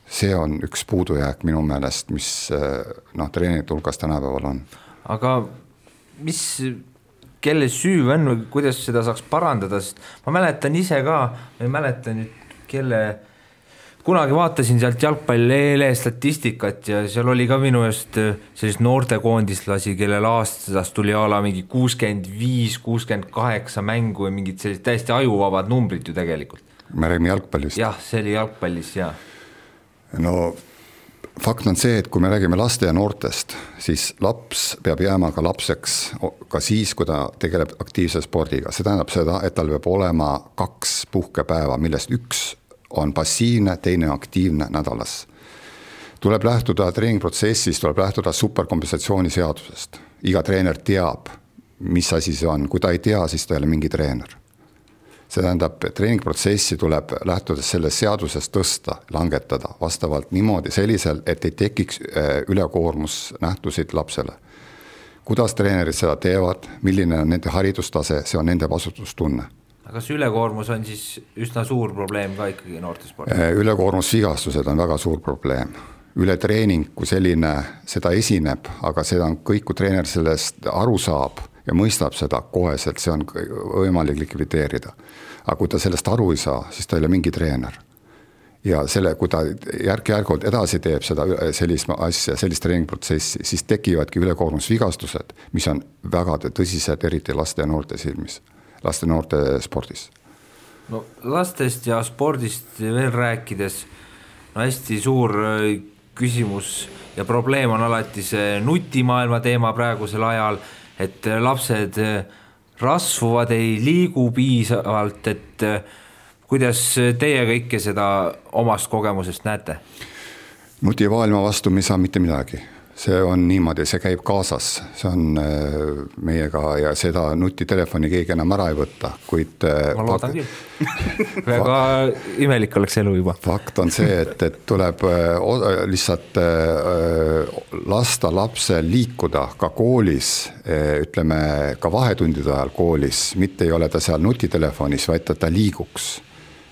Speaker 4: See on üks puudujääk minu meelest, mis treeningite hulgas tänapäeval on. Aga
Speaker 5: kelle süü on või kuidas seda saaks parandada, sest ma mäletan ise ka, ma ei mäleta nüüd, kunagi vaatasin sealt jalgpalli statistikat ja seal oli ka minu eest sellist noortekoondislasi, kellel aastas tuli ala mingi 65-68 mängu ja mingid sellised täiesti ajuvabad numbrid ju tegelikult.
Speaker 4: Me räägime jalgpallist.
Speaker 5: Jah, see oli jalgpallis, jah.
Speaker 4: No fakt on see, et kui me räägime laste ja noortest, siis laps peab jääma ka lapseks ka siis, kui ta tegeleb aktiivse spordiga. See tähendab seda, et tal peab olema 2 puhkepäeva, millest üks on passiivne, teine aktiivne nädalas. Tuleb lähtuda treeningprotsessist, tuleb lähtuda superkompensatsiooni seadusest. Iga treener teab, mis asi see on. Kui ta ei tea, siis ta ei ole mingi treener. See tähendab, treeningprotsessi tuleb lähtudes sellest seadusest tõsta, langetada vastavalt niimoodi sellisel, et ei tekiks ülekoormusnähtusid lapsele. Kuidas treenerid seda teevad, milline on nende haridustase, see on nende vastutustunne.
Speaker 5: Aga kas ülekoormus on siis üsna suur probleem ka ikkagi noortespordis?
Speaker 4: Ülekoormusvigastused on väga suur probleem. Ületreening, kui selline seda esineb, aga seda on kõik, kui treener sellest aru saab ja mõistab seda koheselt, see on võimalik likvideerida. Aga kui ta sellest aru ei saa, siis ta ei ole mingi treener. Ja kui ta järk-järgult edasi teeb seda sellist asja, sellist treeningprotsessi, siis tekivadki ülekoormusvigastused, mis on väga tõsised, eriti laste ja noorte silmis. Laste noorte spordis.
Speaker 5: No lastest ja spordist veel rääkides, hästi suur küsimus ja probleem on alati see nutimaailma teema praegusel ajal, et lapsed rasvuvad, ei liigu piisavalt, et kuidas teie kõike seda omast kogemusest näete?
Speaker 4: Nutimaailma vastu me ei saa mitte midagi. See on niimoodi, see käib kaasas, see on meiega ja seda nutitelefoni keegi enam ära ei võtta, kuid
Speaker 5: ma loodan küll. Väga imelik oleks elu juba.
Speaker 4: Fakt on see, et tuleb lihtsalt lasta lapse liikuda ka koolis, ütleme ka vahetundide ajal koolis, mitte ei ole ta seal nutitelefonis, vaid ta liiguks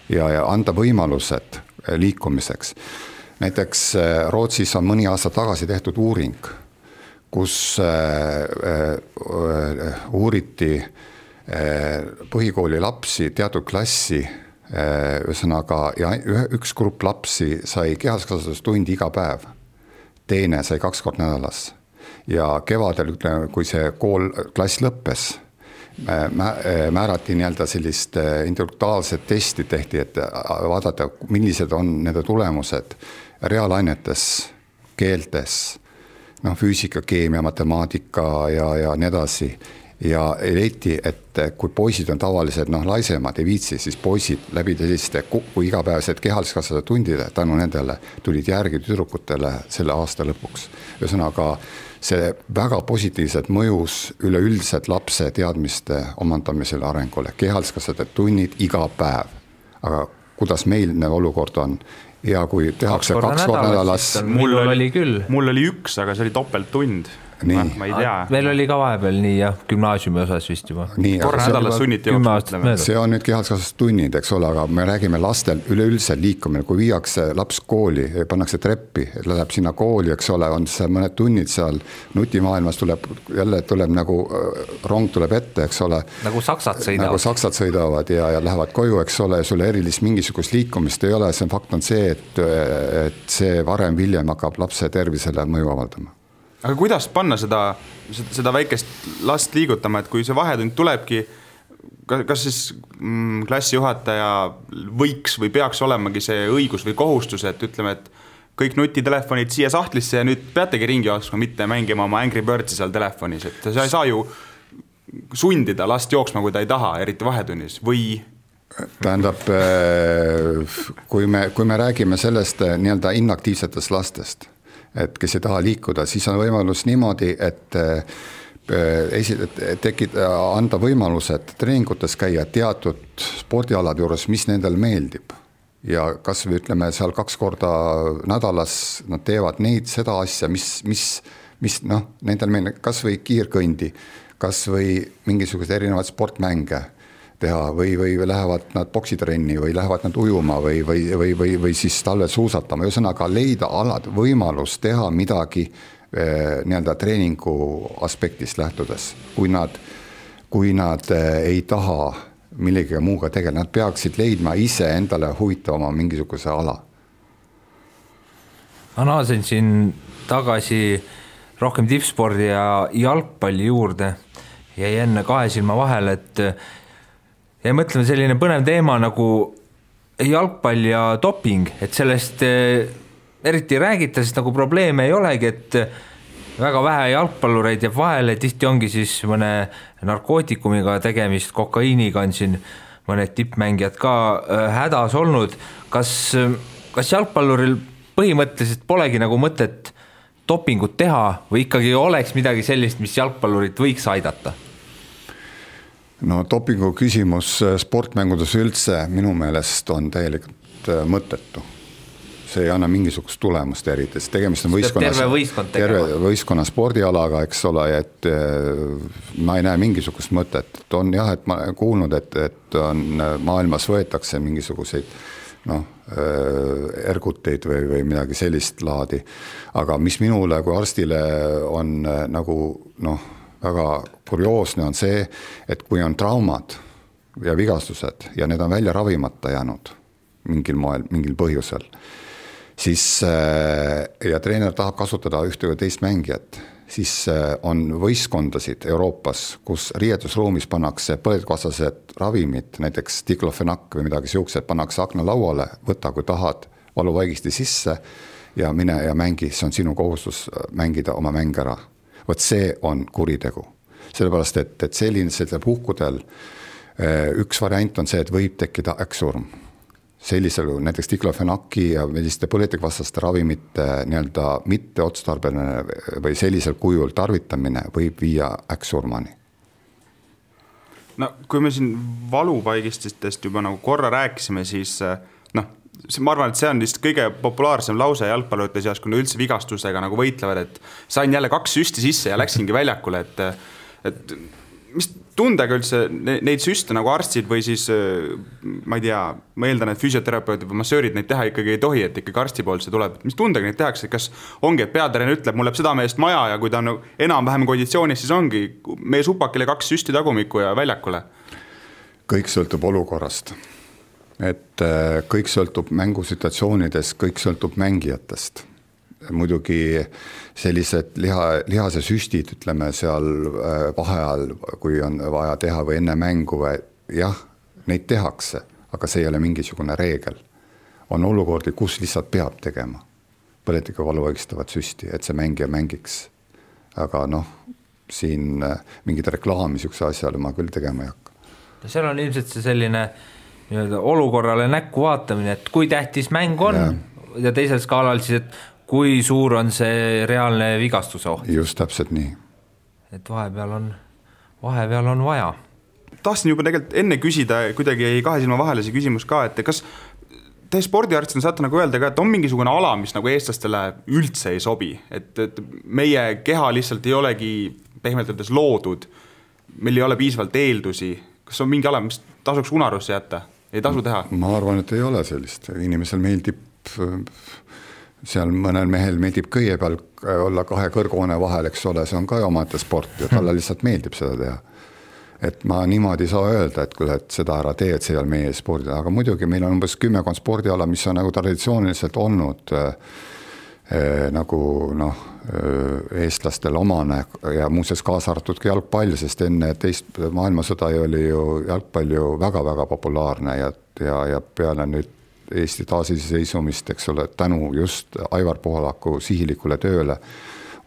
Speaker 4: ja anda võimalused liikumiseks. Näiteks Rootsis on mõni aasta tagasi tehtud uuring, kus uuriti põhikooli lapsi, teatud klassi, ühesõnaga, ja üks grupp lapsi sai kehaskasvatustundi iga päev, teine sai 2 kord nädalas. Ja kevadel, kui see klass lõppes, määrati nii-öelda sellist intellektuaalset testi tehti, et vaadata, millised on nende tulemused reaalainetes, keeltes, füüsika, keemia, matemaatika ja nii edasi. ja leiti, et kui poisid on tavalised laisemad, ei viitsi, siis poisid läbi selliste kui igapäevased kehaliskasvatuse tundide tänu nendele tulid järgi tüdrukutele selle aasta lõpuks. Ühesõnaga, see väga positiivselt mõjus üleüldiselt lapse teadmiste omandamisele arengule, kehaliskasvatuse tunnid iga päev. Aga kuidas meil olukord on? Ja kui tehakse 2 korda nädalas.
Speaker 5: Mul oli küll.
Speaker 3: Mul oli 1, aga see oli topelttund. Ma ei tea.
Speaker 5: Meil oli ka vahepeal nii ja gümnaasiumi osas vist juba.
Speaker 3: Korra nädalas sunniti jooksma.
Speaker 4: See on nüüd kehaliskasvatustunnid, eks ole, aga me räägime lastel üleüldse liikumine, kui viiakse laps kooli, pannakse treppi, läheb sinna kooli, eks ole, on seal mõned tunnid seal, nutimaailmas tuleb nagu rong tuleb ette, eks ole.
Speaker 5: Nagu saksad
Speaker 4: sõidavad ja lähevad koju, eks ole, ja sulle erilist mingisugust liikumist ei ole, see fakt on see, et see varem hiljem hakkab lapse tervisele mõju avaldama.
Speaker 3: Aga kuidas panna seda väikest last liigutama, et kui see vahetund tulebki, kas siis klassijuhataja võiks või peaks olemagi see õigus või kohustus, et ütleme, et kõik nutitelefonid siia sahtlisse ja nüüd peategi ringi jooksma, mitte mängima oma Angry Birdsi seal telefonis, et sa ei saa ju sundida last jooksma, kui ta ei taha, eriti vahetunnis, või...
Speaker 4: Tähendab, kui me räägime sellest nii-öelda inaktiivsetest lastest, et kes ei taha liikuda, siis on võimalus niimoodi, et anda võimalused treeningutes käia teatud spordialade juures, mis nendel meeldib. Ja kas või ütleme seal 2 korda nädalas nad teevad seda asja, mis nendel meeldib, kas või kiirkõndi, kas või mingisugused erinevad sportmänge teha või lähevad nad boksitrenni või lähevad nad ujuma või siis talvel suusatama. Ühesõnaga leida alad võimalus teha midagi nii-öelda treeningu aspektist lähtudes. Kui nad ei taha millegagi muuga tegeleda, nad peaksid leidma ise endale huvitavama mingisuguse ala.
Speaker 5: Ma naasen siin tagasi rohkem tippspordi ja jalgpalli juurde ja enne 2 silma vahel, et ja mõtleme selline põnev teema nagu jalgpall ja doping, et sellest eriti räägita, sest nagu probleeme ei olegi, et väga vähe jalgpallureid jääb vahele, tihti ongi siis mõne narkootikumiga tegemist, kokaiiniga on siin mõned tippmängijad ka hädas olnud. Kas jalgpalluril põhimõtteliselt polegi nagu mõtet dopingut teha või ikkagi oleks midagi sellist, mis jalgpallurit võiks aidata?
Speaker 4: No dopingu küsimus sportmängudes üldse minu meelest on täielikult mõttetu. See ei anna mingisugust tulemust eriti, sest tegemist on terve võistkonna spordialaga, eks ole, et ma ei näe mingisugust mõtet. On jah, et ma olen kuulnud, et on maailmas võetakse mingisuguseid erguteid või midagi sellist laadi, aga mis minule kui arstile on nagu väga kurioosne on see, et kui on traumad ja vigastused ja need on välja ravimata jäänud mingil moel, mingil põhjusel, siis ja treener tahab kasutada ühte või teist mängijat, siis on võistkondasid Euroopas, kus riietusruumis pannakse põletikuvastased ravimid, näiteks diklofenak või midagi siuksed, pannakse akna lauale, võta kui tahad valuvaigisti sisse ja mine ja mängi, see on sinu kohustus mängida oma mäng ära. Võt see on kuritegu. Sellepärast, et sellisel puhkudel üks variant on see, et võib tekkida äkksurm. Sellisel näiteks diklofenaki ja selliste põletikvastaste ravimite nii-öelda mitteotstarbeline või sellisel kujul tarvitamine võib viia äkksurmani.
Speaker 3: No kui me siin valupaigististest juba nagu korra rääkisime, siis ma arvan, et see on vist kõige populaarsem lause jalgpallurite seas, kui üldse vigastustega nagu võitlevad, et sain jälle 2 süsti sisse ja läksingi väljakule, et mis tundega üldse neid süste nagu arstid või siis ma ei tea, ma eeldan, et füsioterapeutid või massöörid neid teha ikkagi ei tohi, et ikkagi arsti poolt see tuleb. Mis tundega neid tehakse, kas ongi, et peatreener ütleb, mul läheb südameest maja ja kui ta on enam-vähem konditsioonis, siis ongi meie supakile 2 süsti tagumikku ja väljakule?
Speaker 4: Kõik sõltub olukorrast. Et kõik sõltub mängusituatsioonides, kõik sõltub mängijatest. Muidugi sellised lihase süstid, ütleme seal vaheajal, kui on vaja teha või enne mängu, jah, neid tehakse, aga see ei ole mingisugune reegel. On olukordi, kus lihtsalt peab tegema põletikuvalu õigstavat süsti, et see mängija mängiks. Aga siin mingit reklaami niisuguse asjale ma küll tegema ei hakka.
Speaker 5: Seal on ilmselt see selline olukorrale näkku vaatamine, et kui tähtis mäng on ja teisel skaalal siis, et kui suur on see reaalne vigastuse oht.
Speaker 4: Just täpselt nii.
Speaker 5: Et vahepeal on vaja.
Speaker 3: Tahtsin juba tegelikult enne küsida, kuidagi ei kahe silma vahele see küsimus ka, et kas te spordiarstina saate nagu öelda ka, et on mingisugune ala, mis nagu eestlastele üldse ei sobi, et meie keha lihtsalt ei olegi pehmelt öeldes loodud, meil ei ole piisavalt eeldusi, kas on mingi ala, mis tasuks unarusse jätta, ei tasu teha?
Speaker 4: Ma arvan, et ei ole sellist, inimesel meeldib, seal mõnel mehel meeldib kõie peal olla 2 kõrghoone vahel, eks ole, see on ka omate sport ja talle lihtsalt meeldib seda teha. Et ma niimoodi saa öelda, et seda ära tee, et see ei ole meie spordi, aga muidugi meil on umbes 10 spordiala, mis on nagu traditsiooniliselt olnud nagu eestlastel omane ja muuseas kaasa arvatud ka jalgpall, sest enne teist maailmasõda oli ju jalgpall ju väga-väga populaarne ja peale nüüd Eesti taasiseseisvumist, eks ole, tänu just Aivar Pohlaku sihilikule tööle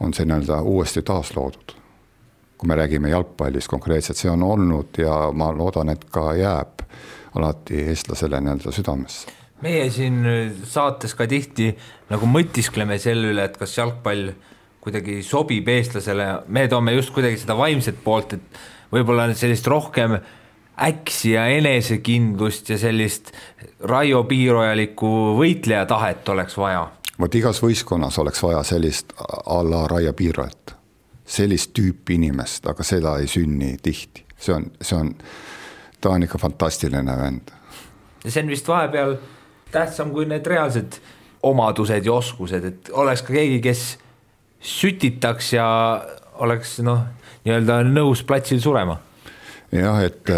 Speaker 4: on see uuesti taasloodud. Kui me räägime jalgpallis konkreetselt, see on olnud ja ma loodan, et ka jääb alati eestlasele südamesse.
Speaker 5: Meie siin saates ka tihti nagu mõtiskleme selle üle, et kas jalgpall kuidagi sobib eestlasele, me toome just kuidagi seda vaimset poolt, et võib-olla sellist rohkem äksi ja enesekindlust ja sellist Raio Piirojalikku võitleja tahet oleks vaja.
Speaker 4: Vot igas võistkonnas oleks vaja sellist a la Raio Piirojat, sellist tüüpi inimest, aga seda ei sünni tihti. Ta on ikka fantastiline vend.
Speaker 5: Ja see on vist vahepeal tähtsam kui need reaalsed omadused ja oskused, et oleks ka keegi, kes sütitaks ja oleks nii-öelda nõus platsil surema.
Speaker 4: Jah, et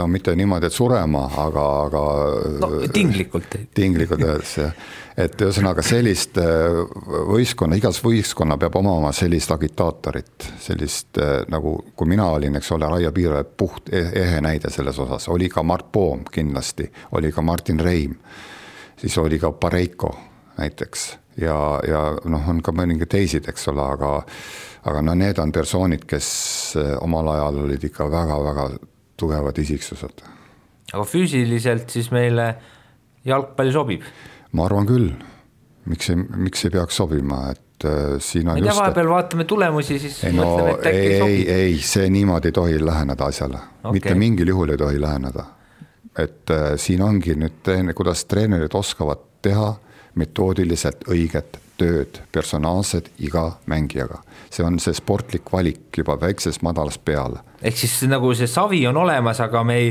Speaker 4: mitte niimoodi, et surema, aga
Speaker 5: tinglikult
Speaker 4: öeldes, et ühesõnaga sellist võistkonna, igas võistkonna peab omama sellist agitaatorit, sellist nagu, kui mina olin, eks ole, Raio Piiro puht ehe näide selles osas, oli ka Mart Poom kindlasti, oli ka Martin Reim, siis oli ka Pareiko näiteks ja on ka mõningi teisid, eks ole, aga need on persoonid, kes omal ajal olid ikka väga-väga tugevad isiksused.
Speaker 5: Aga füüsiliselt siis meile jalgpalli sobib?
Speaker 4: Ma arvan küll. Miks ei peaks sobima? Et siin on
Speaker 5: just... vahepeal vaatame tulemusi, siis mõtleme, et äkki sobib.
Speaker 4: Ei, see niimoodi ei tohi läheneda asjale. Okay. Mitte mingil juhul ei tohi läheneda. Et siin ongi nüüd, kuidas treenerid oskavad teha metoodiliselt õiget tööd, personaalsed iga mängijaga. See on see sportlik valik juba väikses madalas peale.
Speaker 5: Ehk siis nagu see savi on olemas, aga me ei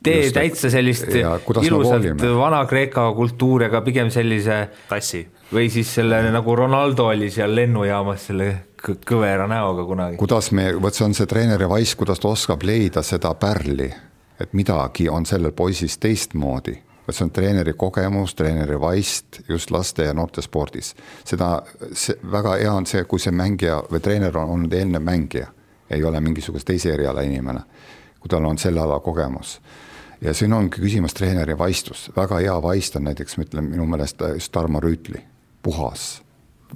Speaker 5: tee täitsa sellist ilusalt Vana-Kreeka kultuuriga, pigem sellise
Speaker 3: tassi.
Speaker 5: Või siis selle nagu Ronaldo oli seal lennujaamas selle kõvera näoga kunagi.
Speaker 4: See on see treeneri vaist, kuidas ta oskab leida seda pärli, et midagi on sellel poisis teistmoodi. See on treeneri kogemus, treeneri vaist just laste ja noorte spordis. Väga hea on see, kui see mängija või treener on olnud eelne mängija, ei ole mingisugust teise eriala inimene, kui tal on selle ala kogemus. Ja siin ongi küsimus treeneri vaistus. Väga hea vaist on näiteks, minu meelest just Tarmo Rüütli, puhas,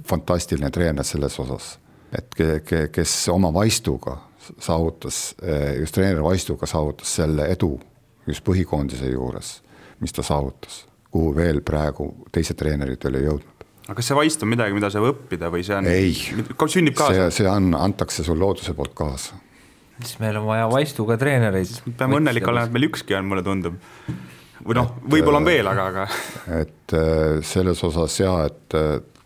Speaker 4: fantastiline treener selles osas, et kes oma vaistuga saavutas, just treeneri vaistuga saavutas selle edu just põhikoondise juures, mis ta saavutas, kuhu veel praegu teised treenerid ei jõudnud.
Speaker 3: Aga kas see vaist on midagi, mida saab õppida või see on...
Speaker 4: Ei,
Speaker 3: sünnib kaasa?
Speaker 4: See antakse sul looduse poolt kaasa.
Speaker 5: Siis meil on vaja vaistuga treenereid.
Speaker 3: Peame õnnelik olema, et meil ükski on, mulle tundub. Või võib-olla on veel, aga...
Speaker 4: Et selles osas et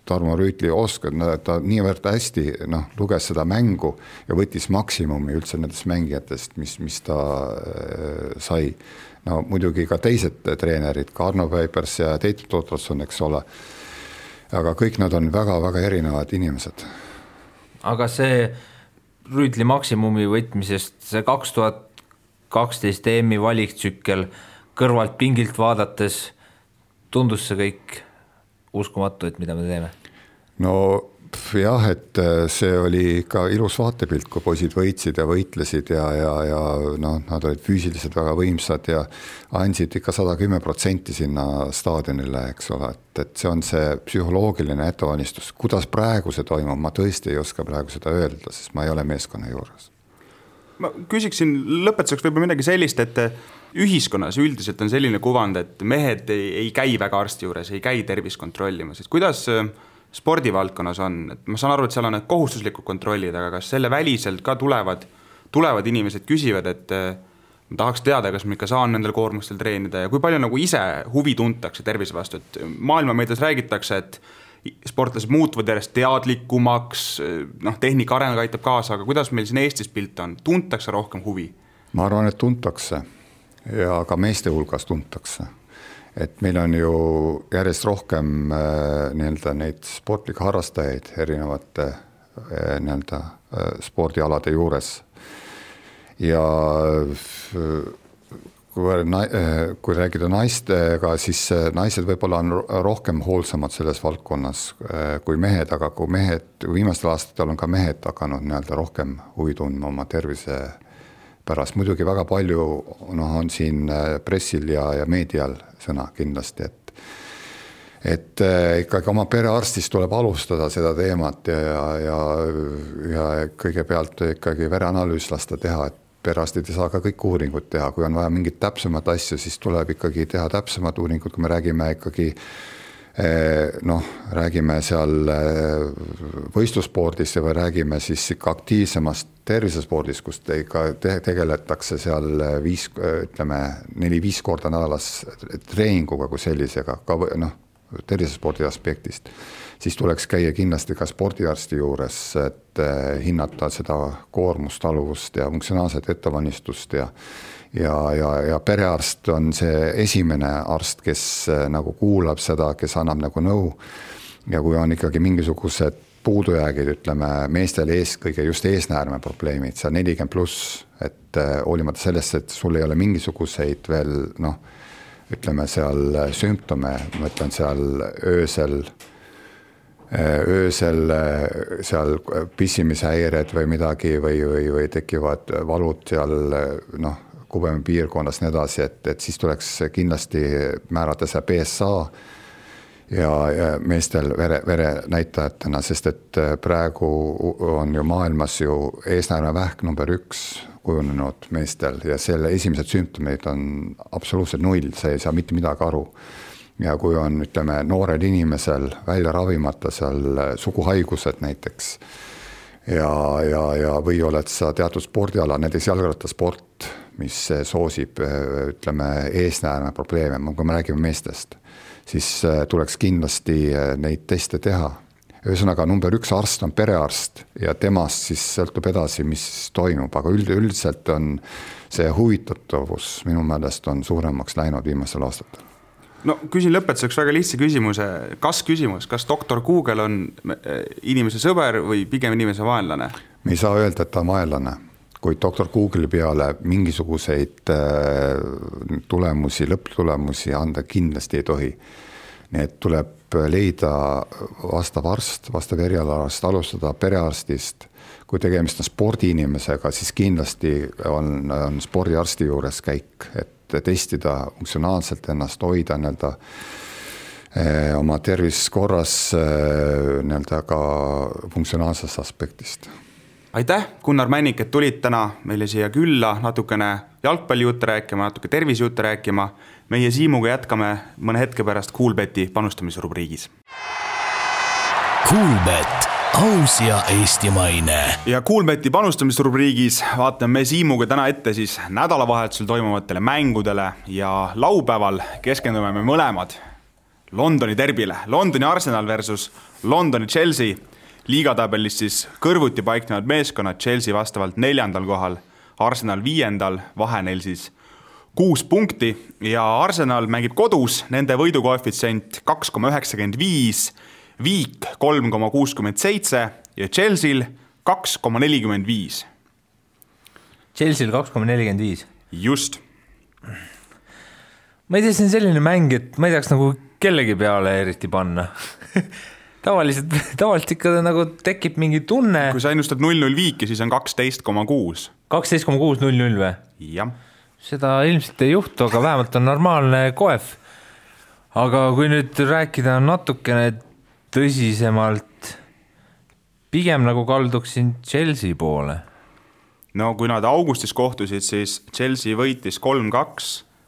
Speaker 4: Tarmo Rüütli oskab, ta niivõrd hästi luges seda mängu ja võttis maksimumi üldse nendest mängijatest, mis ta sai. Muidugi ka teised treenerid, ka Arno Päipers ja Teit Totrosson, eks ole. Aga kõik nad on väga-väga erinevad inimesed.
Speaker 5: Aga see Rüütli maksimumi võtmisest, see 2012 EM-i valiktsükkel kõrvalt pingilt vaadates tundus see kõik uskumatu, et mida me teeme?
Speaker 4: jah, et see oli ikka ilus vaatepilt, kui poisid võitsid ja võitlesid ja noh, nad olid füüsiliselt väga võimsad ja andsid ikka 110% sinna staadionile, eks ole, et see on see psühholoogiline ettevalmistus. Kuidas praegu see toimub, ma tõesti ei oska praegu seda öelda, sest ma ei ole meeskonna juures.
Speaker 3: Ma küsiksin lõpetuseks võib-olla midagi sellist, et ühiskonnas üldiselt on selline kuvand, et mehed ei käi väga arsti juures, ei käi tervist kontrollimas. Kuidas spordivaldkonnas on? Et ma saan aru, et seal on need kohustuslikud kontrollid, aga kas selle väliselt ka tulevad inimesed küsivad, et ma tahaks teada, kas ma ikka saan nendel koormustel treenida ja kui palju nagu ise huvi tuntakse tervise vastu, et maailmameedias räägitakse, et sportlased muutuvad järjest teadlikumaks, noh, tehnika areng aitab kaasa, aga kuidas meil siin Eestis pilt on? Tuntakse rohkem huvi?
Speaker 4: Ma arvan, et tuntakse ja ka meeste hulgas tuntakse. Et meil on ju järjest rohkem nii-öelda neid sportlikke harrastajaid erinevate nii-öelda spordialade juures. Ja kui räägida naistega, siis naised võib-olla on rohkem hoolsamad selles valdkonnas kui mehed, aga kui viimastel aastatel on ka mehed hakanud nii-öelda rohkem huvi tundma oma tervise pärast. Muidugi väga palju on siin pressil ja meedial sõna kindlasti, et ikkagi oma perearstist tuleb alustada seda teemat ja kõigepealt ikkagi vereanalüüs lasta teha, et perearstid ei saa ka kõik uuringud teha, kui on vaja mingit täpsemat asju, siis tuleb ikkagi teha täpsemad uuringud, kui me räägime ikkagi räägime seal võistlusspordist või räägime siis ikka aktiivsemast tervisespordist, kus tegeletakse seal 4-5 korda nädalas treeninguga kui sellisega, ka tervisespordi aspektist, siis tuleks käia kindlasti ka spordiarsti juures, et hinnata seda koormust, taluvust ja funktsionaalset ettevalmistust ja perearst on see esimene arst, kes nagu kuulab seda, kes annab nagu nõu ja kui on ikkagi mingisugused puudujäägid, ütleme meestel kõige just eesnäärme probleemid, seal 40+, et hoolimata sellest, et sul ei ole mingisuguseid veel ütleme seal sümptome, ma ütlen seal öösel seal pissimishäired või midagi või tekivad valud seal kubemi piirkonnas nii edasi, et siis tuleks kindlasti määrata see PSA ja meestel vere näitajatena, sest et praegu on ju maailmas ju eesnäärme vähk number 1 kujunenud meestel ja selle esimesed sümptomid on absoluutselt 0, see ei saa mitte midagi aru. Ja kui on, ütleme, noorel inimesel välja ravimata seal suguhaigused näiteks ja või oled sa teatud spordiala, näiteks jalgrattasport, mis soosib, ütleme, eesnäärme probleeme, kui me räägime meestest, siis tuleks kindlasti neid teste teha. Ühesõnaga number 1 arst on perearst ja temast siis sõltub edasi, mis toimub, aga üldiselt on see huvitatavus minu meelest on suuremaks läinud viimasel aastatel.
Speaker 3: No küsin lõpetuseks väga lihtsa küsimuse, kas doktor Google on inimese sõber või pigem inimese vaenlane?
Speaker 4: Me ei saa öelda, et ta on vaenlane, kui doktor Google'i peale mingisuguseid tulemusi, lõpptulemusi anda kindlasti ei tohi. Nii et tuleb leida vastav arst, vastav erialarst, alustada perearstist. Kui tegemist on spordiinimesega, siis kindlasti on spordiarsti juures käik, et testida funktsionaalselt ennast, hoida oma tervis korras ka funktsionaalsest aspektist.
Speaker 3: Aitäh, Gunnar Männik, et tulid täna meile siia külla natukene jalgpallijutte rääkima, natuke tervisejutte rääkima. Meie Siimuga jätkame mõne hetke pärast Kuulbeti panustamisrubriigis.
Speaker 2: Kuulbet, aus ja eestimaine.
Speaker 3: Ja Kuulbeti panustamisrubriigis vaatame me Siimuga täna ette siis nädalavahetusel toimuvatele mängudele ja laupäeval keskendume me mõlemad Londoni derbile. Londoni Arsenal versus Londoni Chelsea. Liigatabelis siis kõrvuti paiknevad meeskonnad, Chelsea vastavalt 4. kohal, Arsenal 5. vahe neil siis 6 punkti ja Arsenal mängib kodus, nende võidukoefitsient 2,95, Viik 3,67 ja Chelsea'l 2,45.
Speaker 5: Chelsea'l 2,45?
Speaker 3: Just.
Speaker 5: Ma ei tea, see on selline mäng, et ma ei tahaks nagu kellegi peale eriti panna. tavaliselt ikka nagu tekib mingi tunne.
Speaker 3: Kui sa ennustad 0-0 viiki, siis on 12,6.
Speaker 5: 12,6-0-0 või?
Speaker 3: Jah.
Speaker 5: Seda ilmselt ei juhtu, aga vähemalt on normaalne koef. Aga kui nüüd rääkida natukene tõsisemalt, pigem nagu kalduksin Chelsea poole.
Speaker 3: No kui nad augustis kohtusid, siis Chelsea võitis 3-2,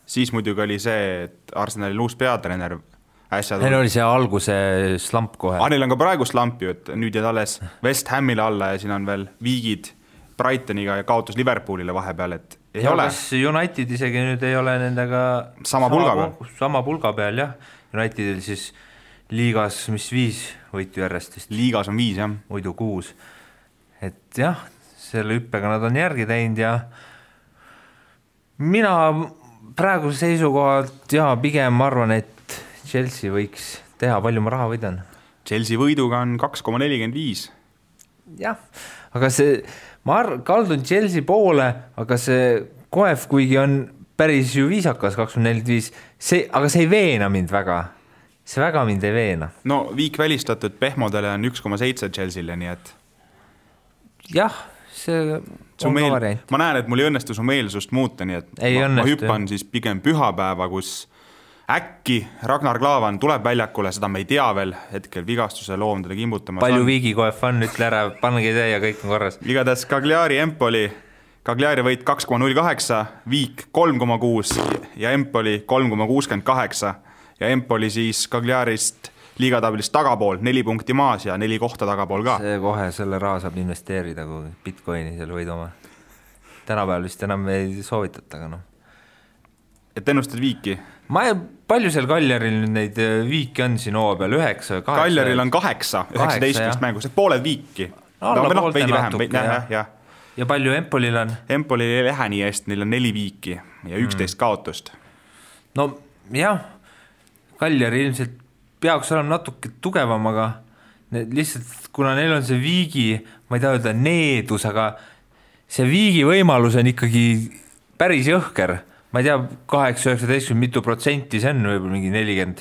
Speaker 3: siis muidugi oli see, et Arsenalil uus peatreener äsja
Speaker 5: Neil oli see alguse slamp kohe.
Speaker 3: Neil on ka praegu slamp ju, et nüüd jääd alles West Hamile alla ja siin on veel viigid Brightoniga ja kaotus Liverpoolile vahepeal, et ei
Speaker 5: ja
Speaker 3: ole.
Speaker 5: Kas United isegi nüüd ei ole nendega
Speaker 3: sama
Speaker 5: pulga peal, jah. Unitedil siis liigas, mis 5 võitu järjest vist.
Speaker 3: Liigas on 5, jah.
Speaker 5: Muidu 6. Et jah, selle hüppega nad on järgi teinud ja mina praegu seisukohalt pigem arvan, et Chelsea võiks teha, palju ma raha võidan.
Speaker 3: Chelsea võiduga on 2,45.
Speaker 5: Jah, aga see, ma kaldun Chelsea poole, aga see koef, kuigi on päris ju viisakas 2,45, aga see ei veena mind väga. See väga mind ei veena.
Speaker 3: No viik välistatud pehmodele on 1,7 Chelsea'le, nii et
Speaker 5: jah, see on ka variant.
Speaker 3: Ma näen, et mul ei õnnestu su meelsust muuta, nii et ma hüppan siis pigem pühapäeva, kus äkki Ragnar Klavan tuleb väljakule, seda me ei tea veel, hetkel vigastuse loom teda kimbutamas.
Speaker 5: Palju viigi koef on, ütle ära, pannegi see ja kõik on korras.
Speaker 3: Igatahes Cagliari Empoli, Cagliari võit 2,08, viik 3,6 ja Empoli 3,68 ja Empoli siis Cagliarist liigatabilist tagapool, 4 punkti maas ja 4 kohta tagapool ka.
Speaker 5: See kohe selle raha saab investeerida, kui Bitcoini seal võid oma. Tänapäeval vist enam ei soovitata, aga noh.
Speaker 3: Et ennustad viiki?
Speaker 5: Palju seal Cagliaril neid viiki on siin hooa peal? 9, 8?
Speaker 3: Cagliaril on 8, 19 mängust, et pooled viiki.
Speaker 5: Poolte natuke,
Speaker 3: jah.
Speaker 5: Ja palju Empolil on?
Speaker 3: Empolil ei lähe nii hästi, neil on 4 viiki ja 11 kaotust.
Speaker 5: No jah, Cagliari ilmselt peaks olema natuke tugevam, aga lihtsalt, kuna neil on see viigi, ma ei taha öelda needus, aga see viigi võimalus on ikkagi päris jõhker. Ma ei tea, 8-19 mitu protsenti, see on võib-olla mingi 40.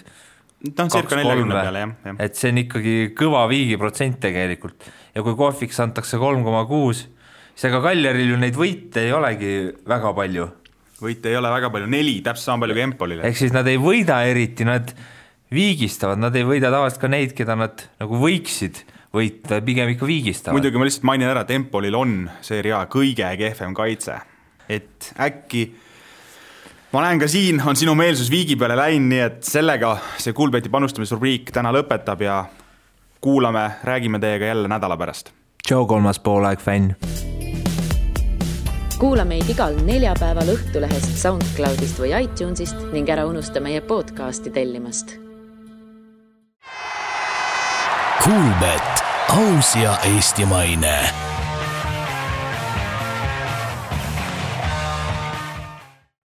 Speaker 3: Ta on cirka 40 peale, jah.
Speaker 5: Et see on ikkagi kõva viigi protsent tegelikult. Ja kui kohviks antakse 3,6, siis aga Cagliaril ju neid võite ei olegi väga palju.
Speaker 3: Võite ei ole väga palju, 4, täpselt sama palju kui Empolile.
Speaker 5: Ehk siis nad ei võida eriti, nad viigistavad, nad ei võida tavaliselt ka neid, keda nad nagu võiksid võita, pigem ikka viigistavad.
Speaker 3: Muidugi ma lihtsalt mainin ära, et Empolil on Serie A kõige kehvem kaitse. Et äkki ma näen ka siin on sinu meelsus viigi peale läinud, nii et sellega see Kuulbeti panustamisrubriik täna lõpetab ja kuulame, räägime teiega jälle nädala pärast.
Speaker 5: Tšau, 3. poolaeg fänn.
Speaker 1: Kuula meid igal neljapäeval Õhtulehest, SoundCloudist või iTunesist ning ära unusta meie podcasti tellimast.
Speaker 2: Kuulbet, aus ja eestimaine.